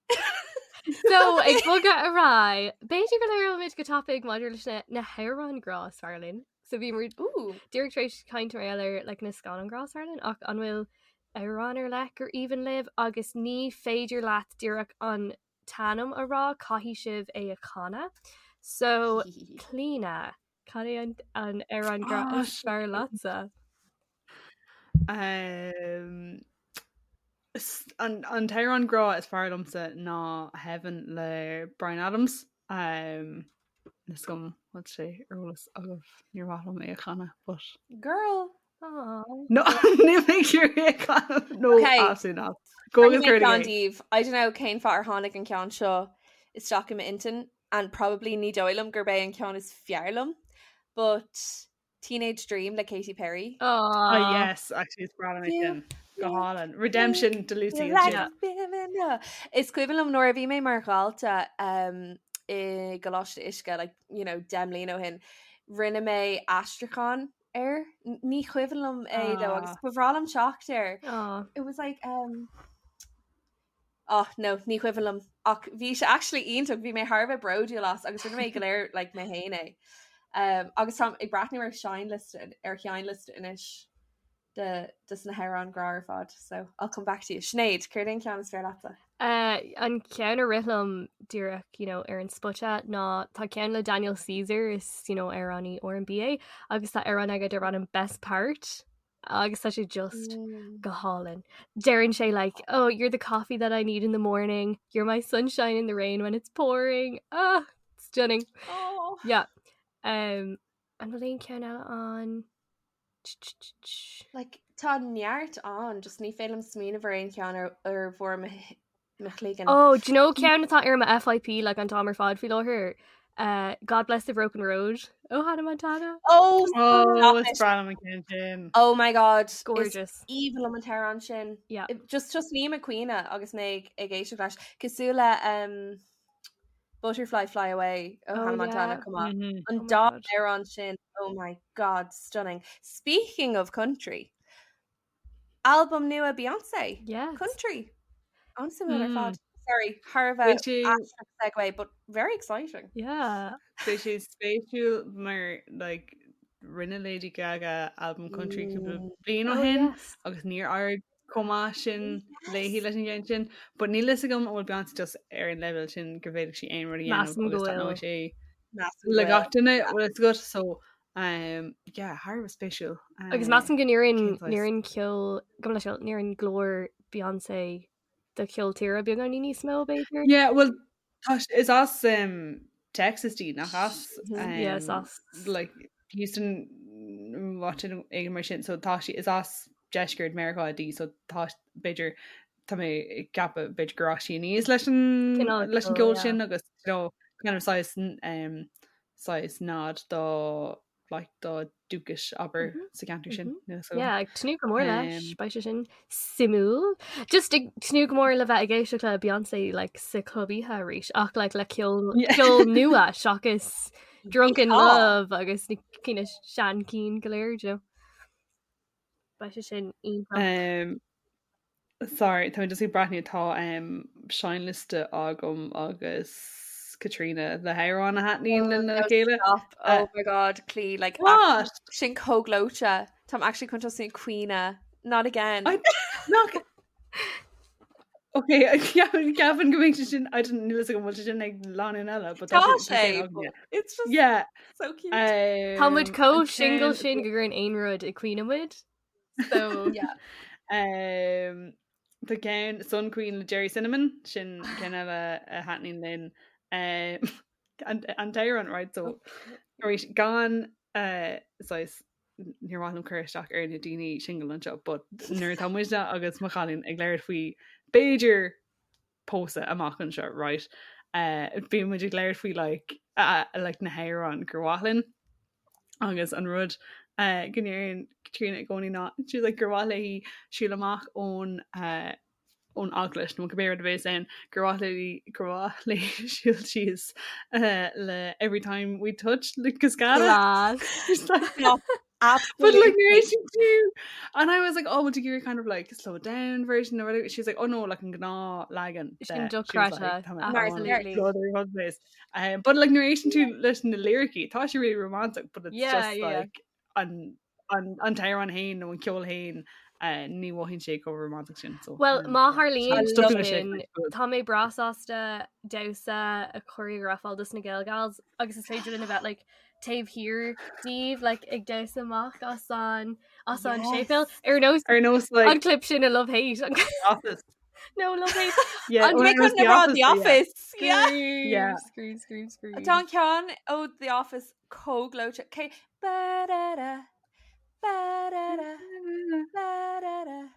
So ag bogadh ar aghaidh, b'fhéidir go labhróimid go tapaidh maidir leis na na hamhráin grá is fearr linn. So bhí muid Ooh. díreach tar éis caint mar gheall ar like, na scannáin grá is fearr linn ach an bhfuil amhrán ar leith gur aoibhinn libh agus ní féidir leat díreach an t-ainm a rá caithfidh sibh é a chanadh. So Clíona, cad é an an amhrán grá Ah, is fearr leatsa? Um, s- an an t-amhrán grá is fearr liomsa ná Heaven le Bryan Adams. Um, Níl a fhios agam bhfuil sé ar eolas agaibh níor mhaith liom é a chanadh, but Girl. Aww. No, níl mé ag iarraidh é a chanadh. No, Okay. absolutely not. Go agus Rinne mé cuir ceann é. díobh. I don't know cén fáth ar tháinig an ceann seo isteach i m'intinn and probably ní dóigh liom gurb é an ceann is fearr liom, but Teenage Dream le Katy Perry. Oh Aww. yes, actually it's breá liom é You sin. Go hálainn. Redemption do Lucy ansin. Is cuimhin liom nuair a bhí mé mar dhalta um, i gColáiste Uisce, like, you know, 10 mbliana ó shin, rinne mé aistriúchán air. Ní cuimhin liom é though agus ba bhreá liom teacht air. It was like um, Oh no, ní cuimhin liom ach bhí sé actually iontach, bhí mé thar a bheith bródúil as agus rinne mé go léir like mé féin é. Um, agus táim ag breathnú ar seinnliosta ar sheinnliosta anois de de na hamhráin grá ar fad, so I'll come back to you. Sinéad, céard é an ceann is fearr leatsa? Uh, an ceann a rith liom díreach you know, ar an spota ná tá ceann le Daniel Caesar is you know, amhránaí R&B é agus tá amhrán aige darb ainm Best Part agus tá sé just mm. go hálainn. Deireann sé like, oh, you're the coffee that I need in the morning, you're my sunshine in the rain when it's pouring. Ah, stunning. Oh. Yeah. Um, an bhfuil aon ceann eile ann? Like, tá neart ann, just ní féidir liom smaoineamh ar aon cheann ar ar bharr mo mo chloigeann. Oh, do you know ceann atá ar mo FYP like an t-am ar fad faoi láthair? Uh, God Bless the Broken Road ó Hannah Montana. Oh, oh is breá liom an ceann sin. Oh my god, gorgeous. Aoibhinn liom an t-amhrán sin. Yeah. Just just nílim ag caoineadh agus mé ag ag éisteacht leis. Cosúil le um, Butterfly Fly Away ó oh, Hannah Montana yeah. come on. Mm -hmm. An oh dá amhrán sin oh my god stunning. Speaking of country album nua Beyonce yes. country an-suimiúil ar fad. Sorry thar a bheith segue but very exciting. Yeah. Beidh sé spéisiúil mar like rinne Lady Gaga album country cúpla mm. bliain ó oh, shin agus níor éirigh chomh maith sin léi leis an gceann sin, but níl fhios agam an bhfuil Beyonce just ar an leibhéal sin go bhféadfadh sí aon rud a dhéanamh agus taitneoidh sé le gach duine bhfuil fhios agat so um, yeah, thar a bheith spéisiúil. Agus measaim go n-oireann ceol gabh mo leithscéal n-oireann glór Beyonce do cheol tíre beagáinín níos mó b'fhéidir? Yeah, well tá is as um, Texas di nach as um, yeah, is as like Houston áit éigin mar sin so tá sí is as deisceart Meiriceá di so tá b'fhéidir tá mé ag ceapadh b'fhéidir gur fhás sí aníos leis an leis an gceol sin agus you know, kind of saghas um, saghas nod do like dá dúchas abair mm -hmm. sa gceantar sin. Mm -hmm. so, yeah, ag tnúth go mór leis um, beidh sé sin suimiúil. Just ag tnúth go mór le bheith ag éisteacht le Beyoncé like, sa club oíche arís ach like, le ceol yeah. ceol nua seachas Drunk in Love agus na cinn seanchinn go léir jo. Beidh sé sin iontach. Um, sorry, tá just ag breathnú tá um, seinnliosta agam agus Katrina le hamhráin a thaitníonn linn le chéile. Stop. Oh uh, my god, Clí, like what? Sin chomh gleoite. Táim actually chun tosú ag caoineadh. Not again. I, not, Ok, ceapaim go mbeidh sé sin I don't níl a fhios agam bhfuil sé sin ag lánúin eile, but tá sé it's just yeah so cute. Um, Tá muid chomh single sin go gcuireann aon rud ag caoineadh muid. So yeah. Um, tá ceann Sun Queen le Gerry Cinnamon sin ceann eile a thaitníonn linn. Um, an, an t-amhrán right so arís gan uh, saghas níor mhaith liom cur isteach ar na daoine single anseo, but nuair atá muidne agus mo chailín ag labhairt faoi b'fhéidir pósadh amach anseo, right? Uh, bíonn muid ag labhairt faoi like, uh, like na hamhráin gur mhaith linn agus an rud uh, go ndeireann Caitríona i gcónaí ná she's like gur mhaith léi siúl amach ón uh, ón eaglais nó cibé rud a bhéas ann gur mhaith léi gur mhaith léi siúl síos uh, le every time we touch le Cascada. Class. Like, No, But like absolutely. narration too. And I was like, oh, would you give her kind of like slow down version or whatever? She's like, oh no, like an gnáthleagan. Sin de. She was dochreidte, like, "Tá mé absolutely. on Um, but like narration to leis na lyricí, tá sé really romantic, but it's Yeah, just yeah. like an an an t-amhrán féin nó an ceol féin ní mhothaíonn sé chomh romantach sin. So, Well, má tharlaíonn Stop sin, sin. tá mé breá sásta damhsa a choreographáil dos na Gael Gals agus is féidir linn a bheith like, taobh thiar díobh like, ag damhsa amach as an as an Yes. séipéal ar nós Ar nós like an clip sin i Love Hate. An- Office. No Love Hate. Yeah, An or Mé ar nós chun rá The yeah. Office. Yeah. Scream, Yeah. scream, scream, scream. Tá an ceann ó The Office chomh gleoite. Cé ba-da-da, ba-da-da, ba-da-da.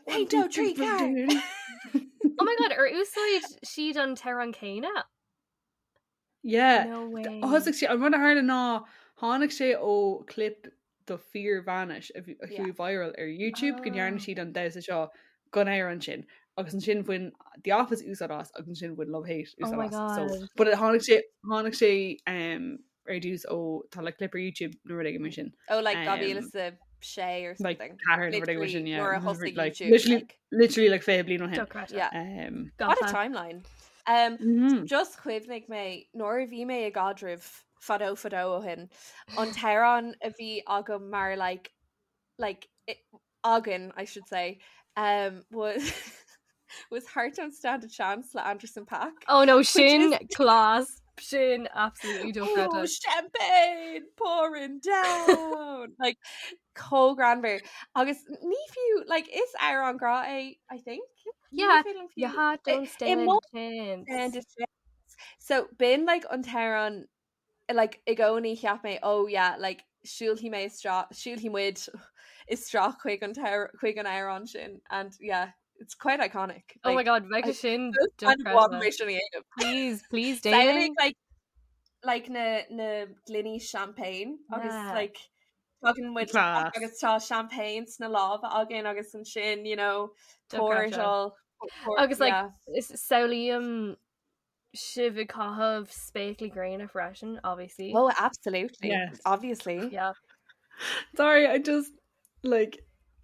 Hey, do tree car. Oh my god, ar úsáid siad an t-amhrán céanna? Yeah. No way. Thosaigh sé an rud a tharla ná tháinig sé ó clip do fíor-bhainis a chuaigh viral ar YouTube go ndearna siad an damhsa seo don amhrán sin agus ansin bhain The Office úsáid as agus ansin bhain Love Hate Oh úsáid my as. So, God. but tháinig sé tháinig sé um, ar dtús ó tá like clip ar YouTube nó rud éigin mar sin. Oh like 2006 or Like something. ceathair nó rud éigin mar sin, Literally yeah. nuair a thosaigh Like, YouTube, literally, like. literally like 20 bliain ó shin. Dochreidte. Yeah. Um, What a Gafa. timeline. Um, Mhm. Just chuimhnigh mé nuair a bhí mé i gcaidreamh fadó fadó ó shin an t-amhrán a bhí agam mar like like it, againn I should say um, was was Heart Don't Stand a Chance le Anderson .Paak. Oh no, Which sin is- class sin absolutely Oh, dochreidte. champagne pouring down like chomh greannmhar agus ní fiú like is amhrán grá é I think Ní Yeah, féidir liom fiú- your heart I- don't i stand mo- a chance. stand a chance. So b'in like an t-amhrán like i gcónaí cheap mé oh yeah like siúlfaidh mé isteach siúlfaidh muid isteach chuig an t- chuig an amhrán sin and yeah it's quite iconic. Oh my Like, god, bheadh I- sin kind of want dochreidte. mé sin a dhéanamh. Please, please Samhlaigh, déan. like like na na gloiní champagne agus Yeah. like tagann muid Class. agus tá champagne sna lámha againn agus ansin you know pour it Dochreidte. all pour, Agus like yeah. is samhlaím sibh ag caitheamh spéaclaí gréine freisin, obviously. Oh absolutely Yes. obviously Yeah. Sorry, I just like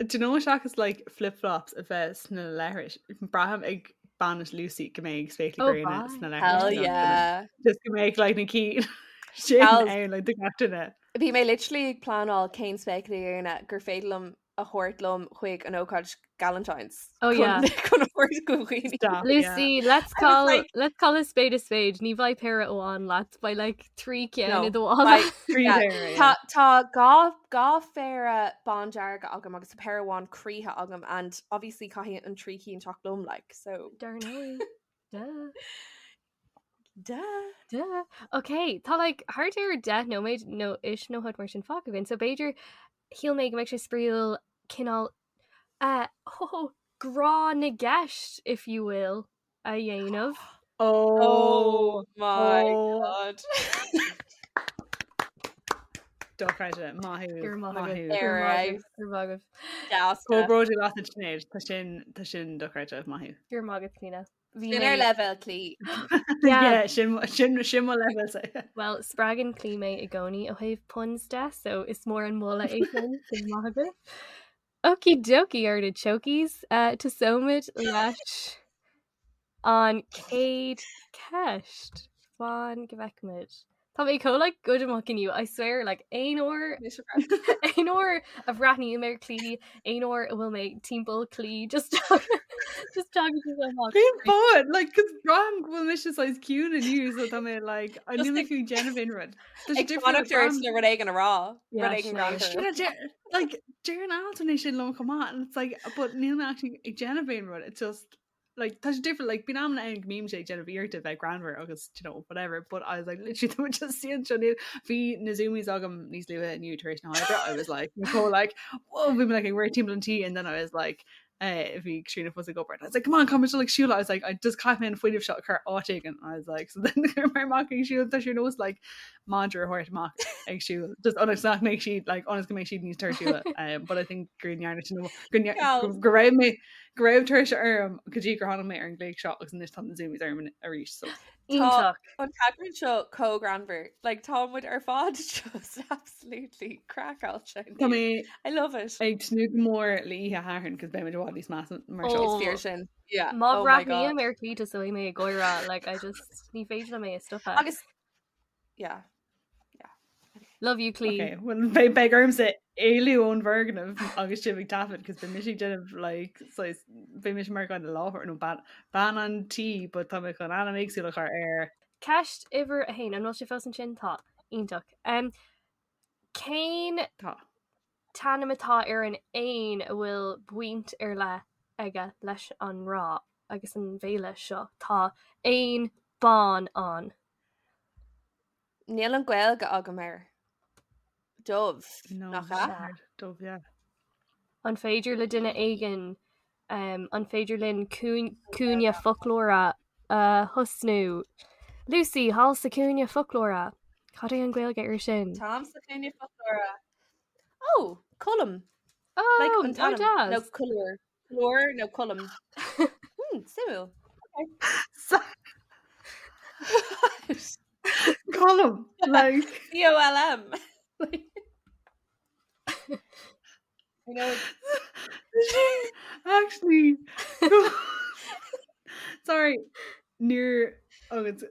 do you know seachas like flip-flops a bheith sna leithris braithim ag bainis Lucy go mbeidh spéaclaí Oh, gréine bye. sna hell leithris yeah just go mbeidh like na cinn sin Gals. ann like do gach duine. Bhí mé literally ag pleanáil cén spéaclaí gréine gur féidir liom a thabhairt liom chuig an ócáid Galentine's Oh, yeah. chun a thabhairt go dhaoine. Stop, yeah. Lucy, let's I was call like- let's call a spade a spade. Ní bheidh péire amháin leat beidh like trí ceann No, i do mhála. beidh- Trí yeah. péire, yeah. Tá tá dhá dhá phéire bándearga agam agus péire amháin croíthe agam and obviously caithfidh an trí cinn teacht liom like so Dar ndóigh. Duh. duh. Duh. Okay, tá like thart ar 10 nóiméad nó is nó rud mar sin fágtha againn. So b'fhéidir shíl mé go mbeadh sé spraíúil cineál uh, ho, grá na gceist, if you will, a dhéanamh. Oh, Oh my oh. god. Dochreidte maith thú, Gur maith maith agaibh, thú. gur Ar maith aghaidh. agaibh, gur maith agaibh. Deas. Comh bródúil asat Sinéad, tá sin tá sin dochreidte maith thú. Gur maith agat Clíona. Bhí Sin ar mé- leibhéal Clí. Yeah. Yeah, sin sin sin mo leibhéal. Well, spreagann Clí mé i gcónaí ó thaobh puns de, so is mór an moladh é sin sin maith agaibh. Okie dokie artichokes, uh, tosóimid leis an chéad ceist. Fan go bhfeicimid. Tá mé chomh like good amach inniu, I swear like aon uair aon uair a bhreathnaím ar Clí, aon uair a bhfuil mé timpeall Clí, just just talking to amach. Cén fáth like cos braithim go bhfuil mise saghas ciúin inniu so tá mé like I Just níl mé ag- fiú ag déanamh aon rud. Tá sé Ag difriúil, fanacht ar braithim- le rud éigin a rá. Yeah, Rud éigin sin é. greannmhar. Sure, deir- like deireann Alton é sin liom chomh maith and it's like but níl mé actually ag déanamh aon rud it's just like tá sé difriúil like bíonn amanna ann go mbímse ag déanamh iarrachta bheith greannmhar agus you know whatever but I was like literally tá just siad seo níl bhí na zoomies agam níos luaithe inniu tar éis na hoibre I was like Nicole like whoa bhí mé like ag rith timpeall an tí and then I was like uh, bhí Katrina fós ag obair and I was like come on come like siúl I was like I just caithfidh mé an fuinneamh seo a chur áit éigin I was like so then chuir mé amach ag siúl tá sé ar nós like madra a thabhairt amach ag siúl just ionas nach mbeidh siad like ionas go mbeidh siad níos tuirsiúla um, but I think gur ndearna sin go ndear- Gals. go raibh mé go raibh tuirse orm go dtí gur tháinig mé ar an ngléig seo agus anois tá na zoomies orm arís so Iontach. An t-eagrán seo chomh greannmhar. Like tá muid ar fad just absolutely craiceáilte. Tá mé I love it. ag tnúth go mór le oíche Shathairn cos beidh muid i bhfad níos measa mar seo. Oh. Is fíor sin. Yeah. Má Oh my God. bhreathnaím ar Clí tosóidh mé ag gáire, like I just ní féidir liom é a stopadh. Agus yeah. Love you Clí. Okay, well beidh beidh ormsa éalú ón bhfoirgneamh agus sibh ag taifead cos beidh mise ag déanamh like saghas beidh mise mar dhuine láthair nó bean bean an tí but tá mé chun ainm éagsúil a chur air. Ceist uimhir a haon, an bhfuil sé fós ansin? Tá. Iontach. Um, cén Tá. t-ainm atá ar an éan a bhfuil baint ar leith aige leis an ngrá agus an bhféile seo? Tá éan bán ann. Níl an Ghaeilge agam air. Dove. No, Nach ea? Dove, yeah. An féidir le duine éigin um, an féidir linn cúin- cúinne foclóra a thosnú? Lucy, thall sa cúinne foclóra. Cad é an Ghaeilge air sin? Táim sa chúinne foclóra. Oh, Colm. Oh, Like an oh, t-ainm. Nó deas. Colúr. Colúr nó Colm. Hmm, suimiúil. Colm like C-O-L-M. I know it's actually sorry níor agus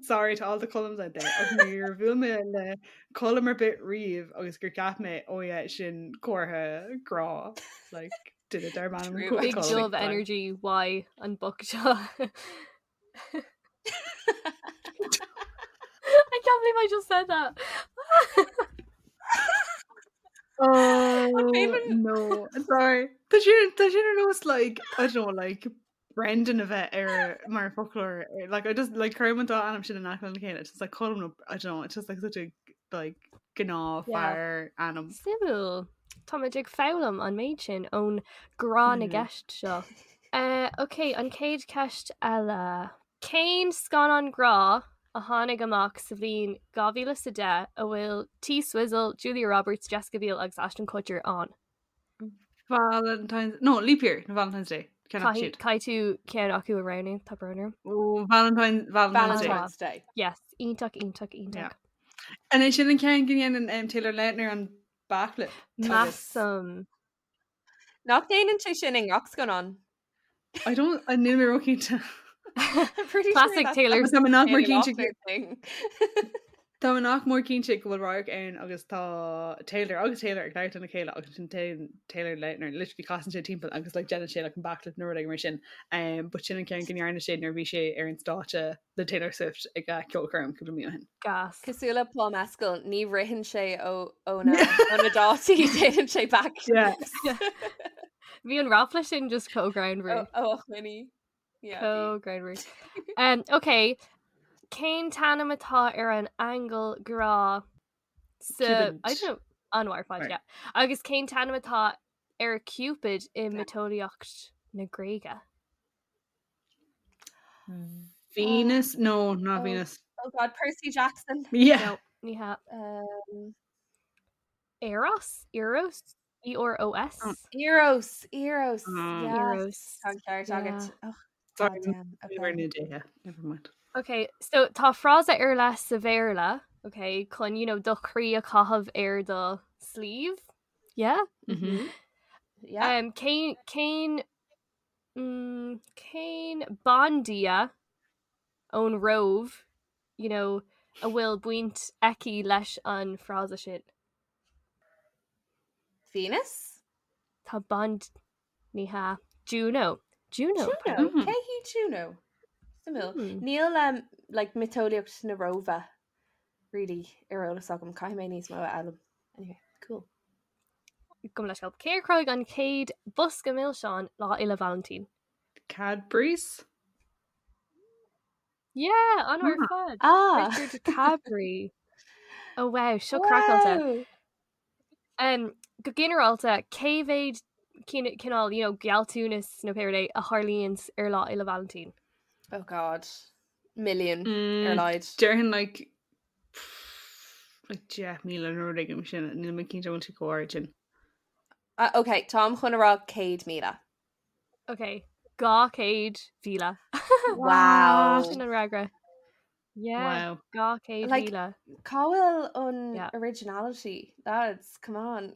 sorry to all the Colms out there ach níor bhuail mé le Colm ar bith riamh agus gur cheap mé oh yeah sin comhartha grá like duine darb ainm True. Big Colm. Dove Like, Energy Y an book seo. I can't believe I just said that. Oh even- no sorry Tá sin tá sin ar nós like I don't know like Brendan a bheith ar mar foclóir like I just like cuirim an dá ainm sin in aice lena chéile it's just like Colm nó I don't know it's just like such a like gnáth Yeah. fear ainm Suimiúil. Táimid ag foghlaim an méid sin ón grá na Mhm. gceist seo. Uh, ok, an chéad ceist eile. Cén scannán grá a tháinig amach sa bhliain 2010 a bhfuil T Swizzle, Julia Roberts, Jessica Biel agus Ashton Kutcher ann? Valentine's no leap year no Valentine's Day Ceann acu siúd. Caithfidh tú ceann acu a roghnú, tá brón orm. Oh, Valentine Valentine's Day Valentine's Day. Yes, iontach, iontach, iontach. Yeah. And é sin an ceann go ndéanann um, Taylor Lautner an backflip agus Measaim. Nach ndéanann sé sin i ngach scannán. I don't I níl mé róchinnte. I'm pretty sure Classic that's Taylor. Tá mé nach mór Taylor cinnte Lautner thing. Tá mé nach mór cinnte go bhfuil radharc ann agus tá Taylor agus Taylor ag labhairt lena chéile agus sin Taylor Lautner literally casann sé timpeall agus like déanann sé like an backflip nó rud éigin mar sin. Um, but sin an ceann go ndearna sé nuair a bhí sé ar an stáitse le Taylor Swift ag a ceolchoirm cúpla mí ó shin. Gas. Cosúil le Paul Mescal, ní ritheann sé ó ó na ó na dátaí déanann sé Yeah. backflips. Bhí an ráfla sin just chomh greannmhar. Ó ó choinní. Yeah, bhí. Chomh greannmhar. Um, ok, cén t-ainm atá ar an aingeal grá sa Cupid. I don't know, an war fad, Right. yeah. Agus cén t-ainm atá ar Cupid i miotaseolaíocht na Gréige? Venus? No, not Oh. Venus. Oh God, Percy Jackson. Yeah. No, ní hea. Um, Eros? Eros? E-R-O-S? Oh. Eros, Eros, Mm. yes. Eros. Tá an ceart agat. Yeah. Oh, Sorry, God damn. we were Okay. in a day. Never mind. Ok, so tá frása ar leith sa Bhéarla, ok, chun, you know, do chroí a chaitheamh ar do sleeve? Yeah? Mm-hmm. Yeah. Um, cén cén mm, cén bandia ón Róimh, you know, a bhfuil baint aici leis an frása sin. Venus? Tá band ní hea Juno. Juno. Juno. pardon. Mhm. Cé hí Juno? Suimiúil. Hmm. Níl um, like, miotaseolaíocht na Róimhe really ar eolas agam. Caithfidh mé níos mó a fhoghlaim. Anyway, cool. Gabh mo leithscéal. Cé a chruthaigh an chéad bosca milseán Lá Fhéile Vailintín? Cadbury's? Yeah, an Ah. ar fad. Ah! Richard Cadbury. Oh wow, seo craiceáilte. Wow! Um, go ginearálta cé mhéad cineál, you know, gealltanas nó pé rud é a tharlaíonn ar Lá Fhéile Vailintín. Oh God. Million ar Mm, a laghad. Déarfainn like like 10,000 nó rud éigin sin níl mé cinnte bhfuil sé chomh hard sin. Uh, okay, táim chun a rá 100,000. Ok, 200,000. Wow. Sin an fhreagra. Yeah, Wow. 200,000. Like- Cá bhfuil an Yeah. originality? Lads, come on.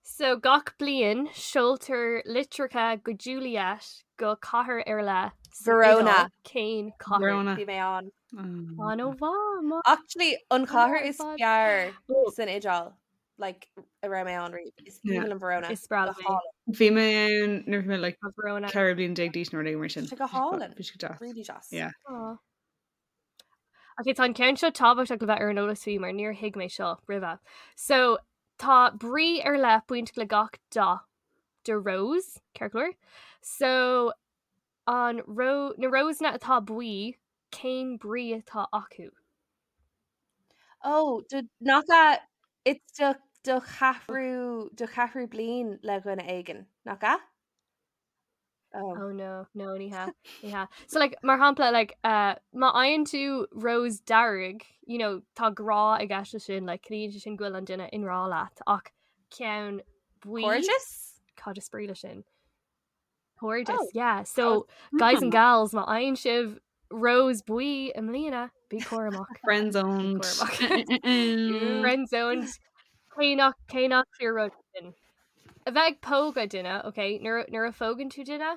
So gach bliain seoltar litreacha go Juliet go cathair ar leith sa Verona. Iodáil. Cén cathair? Verona. Bhí mé ann. Um, An-mhaith. Actually, an chathair is fad. fearr Oh. san Iodáil. Like, a raibh mé ann riamh. Is Yeah. aoibhinn liom Verona. Is breá Go liom é. hálainn. Bhí mé ann nuair a bhí mé like Tá Verona. 14 bliain d'aois nó rud éigin mar sin. Tá go hálainn. Bhí sé go deas. Really deas. Yeah. Aw. Ok, tá an ceann seo tábhachtach le bheith ar an eolas faoi mar níor thuig mé seo roimhe. So tá brí ar leith baint le gach dath de rose, ceart go leor. So an ro na rósanna atá buí, cén brí atá acu? Oh, do nach ea it's do do cheathrú do cheathrú bliain le dhuine éigin, nach ea? Oh. Oh no, no ní hea, ní hea. So like mar shampla like uh, má fhaigheann tú rose dearg, you know, tá grá i gceist leis sin, like ciallaíonn sé sin go bhfuil an duine i ngrá leat ach ceann buí Cairdeas? Cad is brí leis sin? Cairdeas, Oh. yeah. So guys and gals má fhaigheann sibh rose buí i mbliana, bí cúramach. Friend zoned. Bí cúramach. Friend zoned. Cé nach cé nach fíor rud sin. A bheith ag pógadh duine, ok, nuair nuair a phógann tú duine,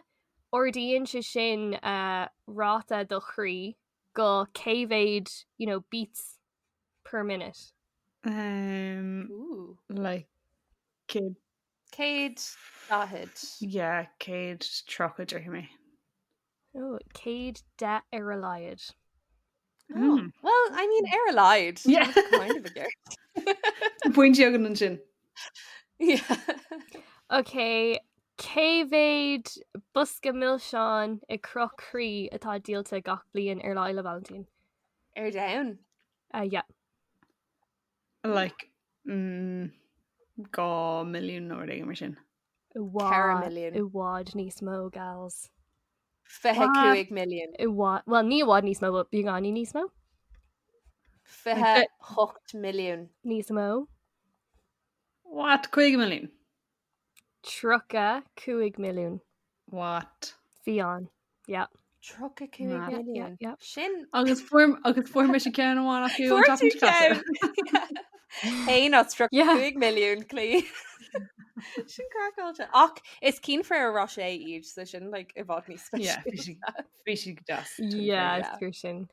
ardaíonn sé sin uh, ráta do chroí go cé mhéad, you know, beats per minute. Um, Ooh. like céad 140. yeah, 130 déarfaidh mé. Oh, 110 ar a laghad. Oh, well, I mean, ar a laghad. Yeah. That's kind of a gear. Pointe againn ansin. Yeah. Ok, cé mhéad bosca milseán i gcruth croí atá díolta gach bliain ar Lá Fhéile Vailintín? Ar domhan. Uh, yeah. Like mm, 2 milliún nó rud éigin mar sin. I 4 bhfad, milliún. i bhfad níos mó, gals. 25 milliún. I bhfad, well, ní i bhfad níos mó, but beagáinín níos mó. 28 milliún. Níos mó. What? 50 milliún? 35 milliún. What? Bhí ann. Yeah. 35 Mad. Yeah, milliún. yeah. Sin Agus fuair agus fuair mise ceann amháin acu an Fuair tseachtain tú seo caite. ceann. Haon as Yeah. 35 milliún clí. Sin craiceáilte. Ach is cinn Ferrero Rocher iad so sin like i bhfad níos Yeah, bhí speisialta. sí bhí sí go deas. Yeah, Yeah. is fíor sin.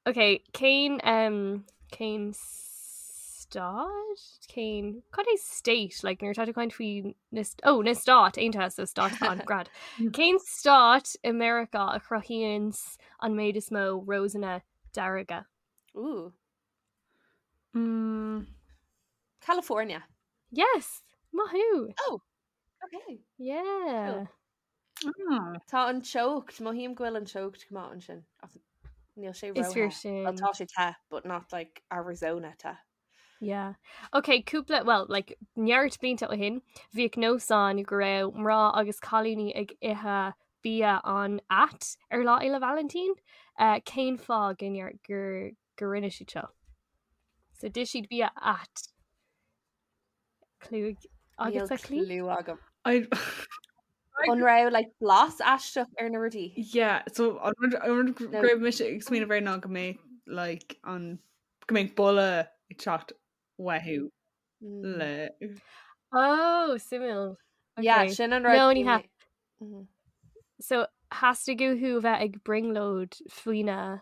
Ok, cén um, cén stát? Cén cad é state? Like nuair atá tú ag caint faoi na st- oh, na Stáit Aontaithe so stáit an grad. Cén stát i Meiriceá a chruthaíonn an méid is mó rósanna dearga? Ooh. Mm, California. Yes, maith thú. Oh, okay. Yeah. ah, Tá an teocht, mothaím go bhfuil an teocht go maith ansin. Ach níl sé Is fíor ró-the. sin. Well, tá sé te, but not like Arizona te. Yeah. Ok, cúpla, well, like, neart blianta ó shin, bhíodh nós ann go raibh mná agus cailíní ag ithe bia an-ait ar Lá Fhéile Vailintín. Uh, cén fáth go ndear- gur gur rinne siad seo? So d'ith siad bia ait. Clue Níl agus a clí? clue agam. I An raibh like blas aisteach ar na rudaí? Yeah, so an rud an rud No. go raibh mise ag smaoineamh air ná go mbeadh like an go mbeadh boladh ag teacht uathu Mm. le Oh, suimiúil. Yeah, Okay. sin an rud. No, ní hea. Mhm. So theastaigh uathu bheith ag brionglóid faoina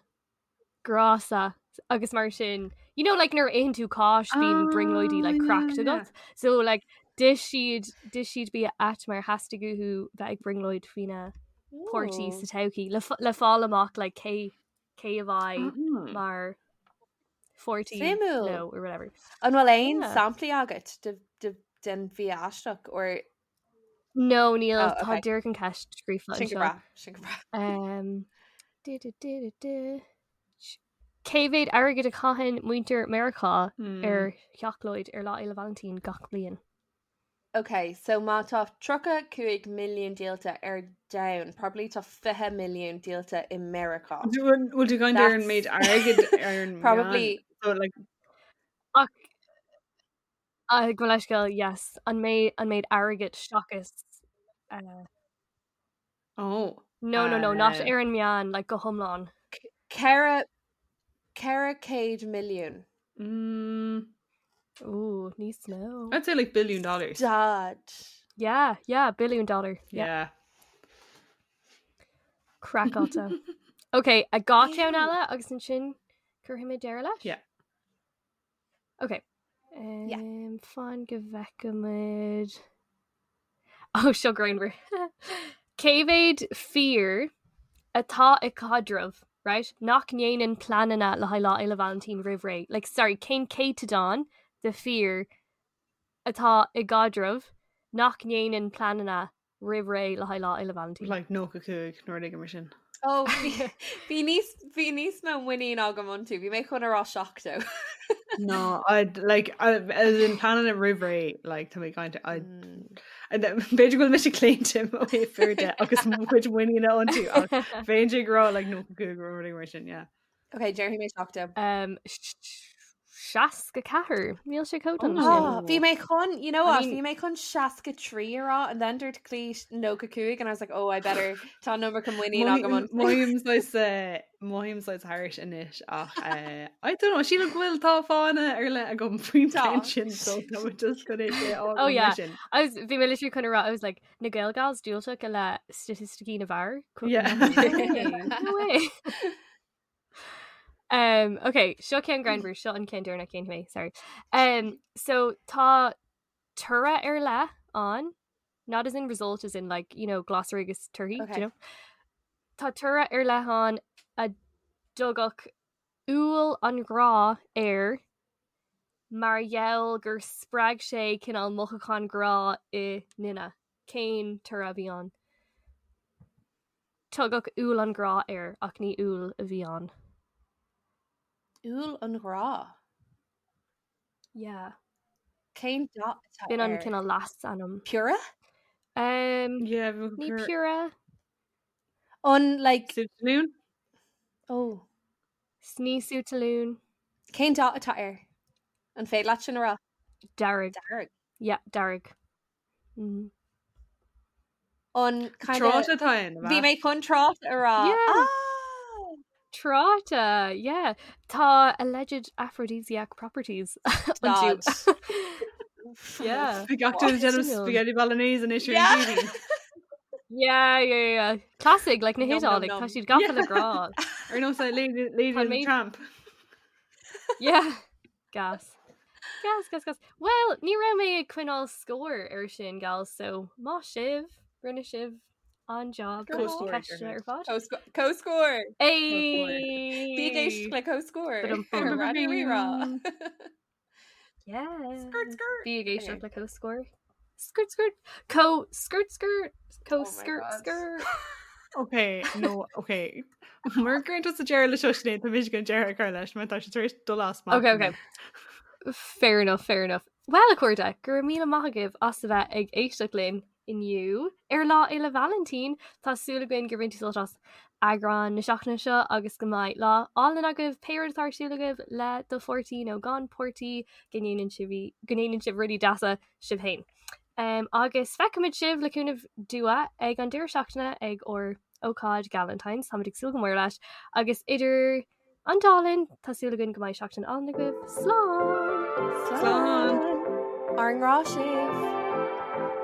grása agus mar sin you know like nuair a itheann tú cáis bíonn brionglóidí like Oh, cracked yeah, agat so like d'ith siad d'ith siad bia ait mar theastaigh uathu bheith ag brionglóid faoina páirtí Ooh. sa todhchaí le f- le fáil amach like cé cé a bheidh Mm. mar pháirtí Suimiúil. leo or whatever. An bhfuil aon Yeah. samplaí agat de, de, den bhia aisteach or No níl Oh, tá okay. díreach an ceist scríofa sin go anseo. breá, sin go breá. Um, du, du, du, du, du. Cé mhéad airgid a chaitheann muintir Meiriceá Mm. ar sheacláid ar Lá Fhéile Vailintín gach bliain? Ok, so má tá 35 milliún díolta ar domhan, probably tá 20 milliún díolta i Meiriceá. Bhfuil tú ag caint ar an méid airgid ar an Probably meán? So like Ach uh, go leisceil, yes, an méid an méid airgid seachas uh, oh no no no not Uh, ar an meán like go hiomlán. 400 milliún. mm, Ooh, níos mó. I'd say like billion dollars. Dad. Yeah, yeah, billion dollar. Yeah. Yeah. Craiceáilte. Ok, a gá ceann Ew. eile agus ansin cuirfidh mé deireadh leis? Yeah. Ok. Yeah. Um, fan go bhfeicimid. Oh, seo greannmhar. Cé mhéad fir atá i caidreamh, right? Nach ndéanann pleananna le haghaidh Lá Fhéile Vailintín roimh ré. Like, sorry, cén céatadán de fir atá i gcaidreamh nach ndéanann pleananna roimh ré le haghaidh Lá Fhéile Vailintín? Like 95 nó rud éigin mar sin. Oh, bhí bhí níos bhí níos mó muinín agam iontu, bhí mé chun a rá 70. No, I'd like I, as in planning roimh ré like tá mé ag caint I Mm. B'fhéidir go bhfuil mise claonta ó thaobh fir de agus mo chuid muiníne iontu ach bheinnse ag rá like 95 nó rudaí mar sin, yeah. Ok, déarfaidh mé 70. Um, 64 níl sé chomh dona sin. Oh, bhí mé chun, you know what, bhí mé chun 63 a rá and then dúirt Clí 95 and I was like, oh, I better tá an iomarca muinín agam an. Mothaím saghas eh, mothaím saghas thairis anois ach eh, I don't know, sílim go bhfuil tá fáthanna ar leith agam faoin Tá. bplean sin so tá mé just chun é sé a Oh fhágáil mar yeah. sin. I was bhí mé literally chun a rá, I was like, na Gael Gals diúltach i leith staitisticí na bhfear? Yeah. No way. No way. Um, ok, seo ceann greannmhar, seo an ceann deireanach cén mé, sorry. Um, so tá toradh ar leith ann, not as in result as in like, you know, glasraí agus torthaí, do Okay. you know? Tá toradh ar leith ann a dtugadh úll an ghrá air mar gheall gur spreag sé cineál mothúchán grá i nduine. Cén toradh a bhí ann? Tugadh úll an ghrá air ach ní úll a bhí ann. Úll an ghrá? Yeah. Cén dath atá B'in an air? cineál leasainm. Piorra? Um, Yeah, bhí ní piorra. piorra. An like Sú talún? Oh. Ní sú talún. Cén dath atá air? An féidir leat sin a rá? Dearg. Dearg. Yeah, dearg. Mm. An kind Tráta atá ann, Bhí mé chun tráta a rá. Yeah. Ah! Tráta, yeah. Tá alleged aphrodisiac properties Stad. iontu. Yeah. Bhí gach duine ag déanamh Suimiúil. spaghetti bolognese anois ar Yeah. an TV. Yeah, yeah, yeah. Classic, like na Nom, nom, hIodálaigh, tá nom. siad gafa Yeah. le grá. Ar nós like Lady, Lady Tá and the mé- Tramp. Yeah. Gas. Gas, gas, gas. Well, ní raibh mé ag coinneáil scór ar sin, gals, so maith sibh, rinne sibh an-job Go leis on. na ceisteanna ar fad. Comhscór. Hey! Bí ag éisteacht le Comhscór. Ba-dum-bum. Raidió Rí-Rá. Yeah. Skirt, skirt. Bí ag éisteacht Okay. le Comhscór. Skirt, skirt. Co, skirt, skirt. Co, Oh my skirt, God. skirt. Ok, no, ok. Mar gur tusa deireadh leis seo Sinéad, tá mise chun deireadh a chur leis, mar tá sé tar éis dul as Ok, ok. Fair enough, fair enough. Well, a chairde, go raibh míle maith agaibh as a bheith ag éisteacht linn inniu ar Lá Fhéile Vailintín. Tá súil againn gur bhain tú sult as eagrán na seachtaine seo agus go mbeidh lá álainn agaibh, pé rud atá ar siúl agaibh le do pháirtí nó gan páirtí, go ndéanann sibh go ndéanann sibh rudaí deasa sibh féin. Um, agus feicfimid sibh le cúnamh Dua ag an deireadh seachtaine ag ár ócáid Galentine's, táimid ag súil go mór leis, agus idir An dá linn, tá súil againn go mbeidh seachtain álainn agaibh. Slán! Slán! Ár ngrá sibh!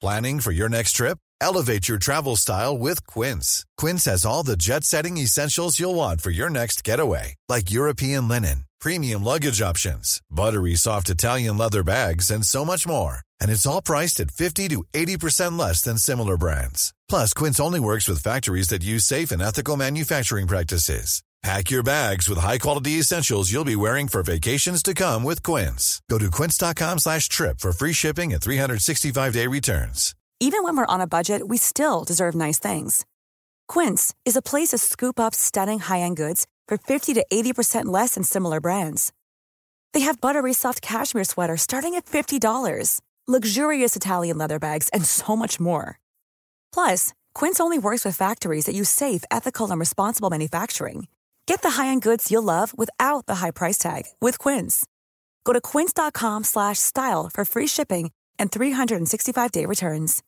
Planning for your next trip? Elevate your travel style with Quince. Quince has all the jet setting essentials you'll want for your next getaway, like European linen, premium luggage options, buttery soft Italian leather bags, and so much more. And it's all priced at 50 to 80% less than similar brands. Plus, Quince only works with factories that use safe and ethical manufacturing practices. Pack your bags with high-quality essentials you'll be wearing for vacations to come with Quince. Go to quince.com slash trip for free shipping and 365-day returns. Even when we're on a budget, we still deserve nice things. Quince is a place to scoop up stunning high-end goods for 50 to 80% less than similar brands. They have buttery soft cashmere sweaters starting at $50, luxurious Italian leather bags, and so much more. Plus, Quince only works with factories that use safe, ethical, and responsible manufacturing. Get the high-end goods you'll love without the high price tag with Quince. Go to quince.com slash style for free shipping and 365-day returns.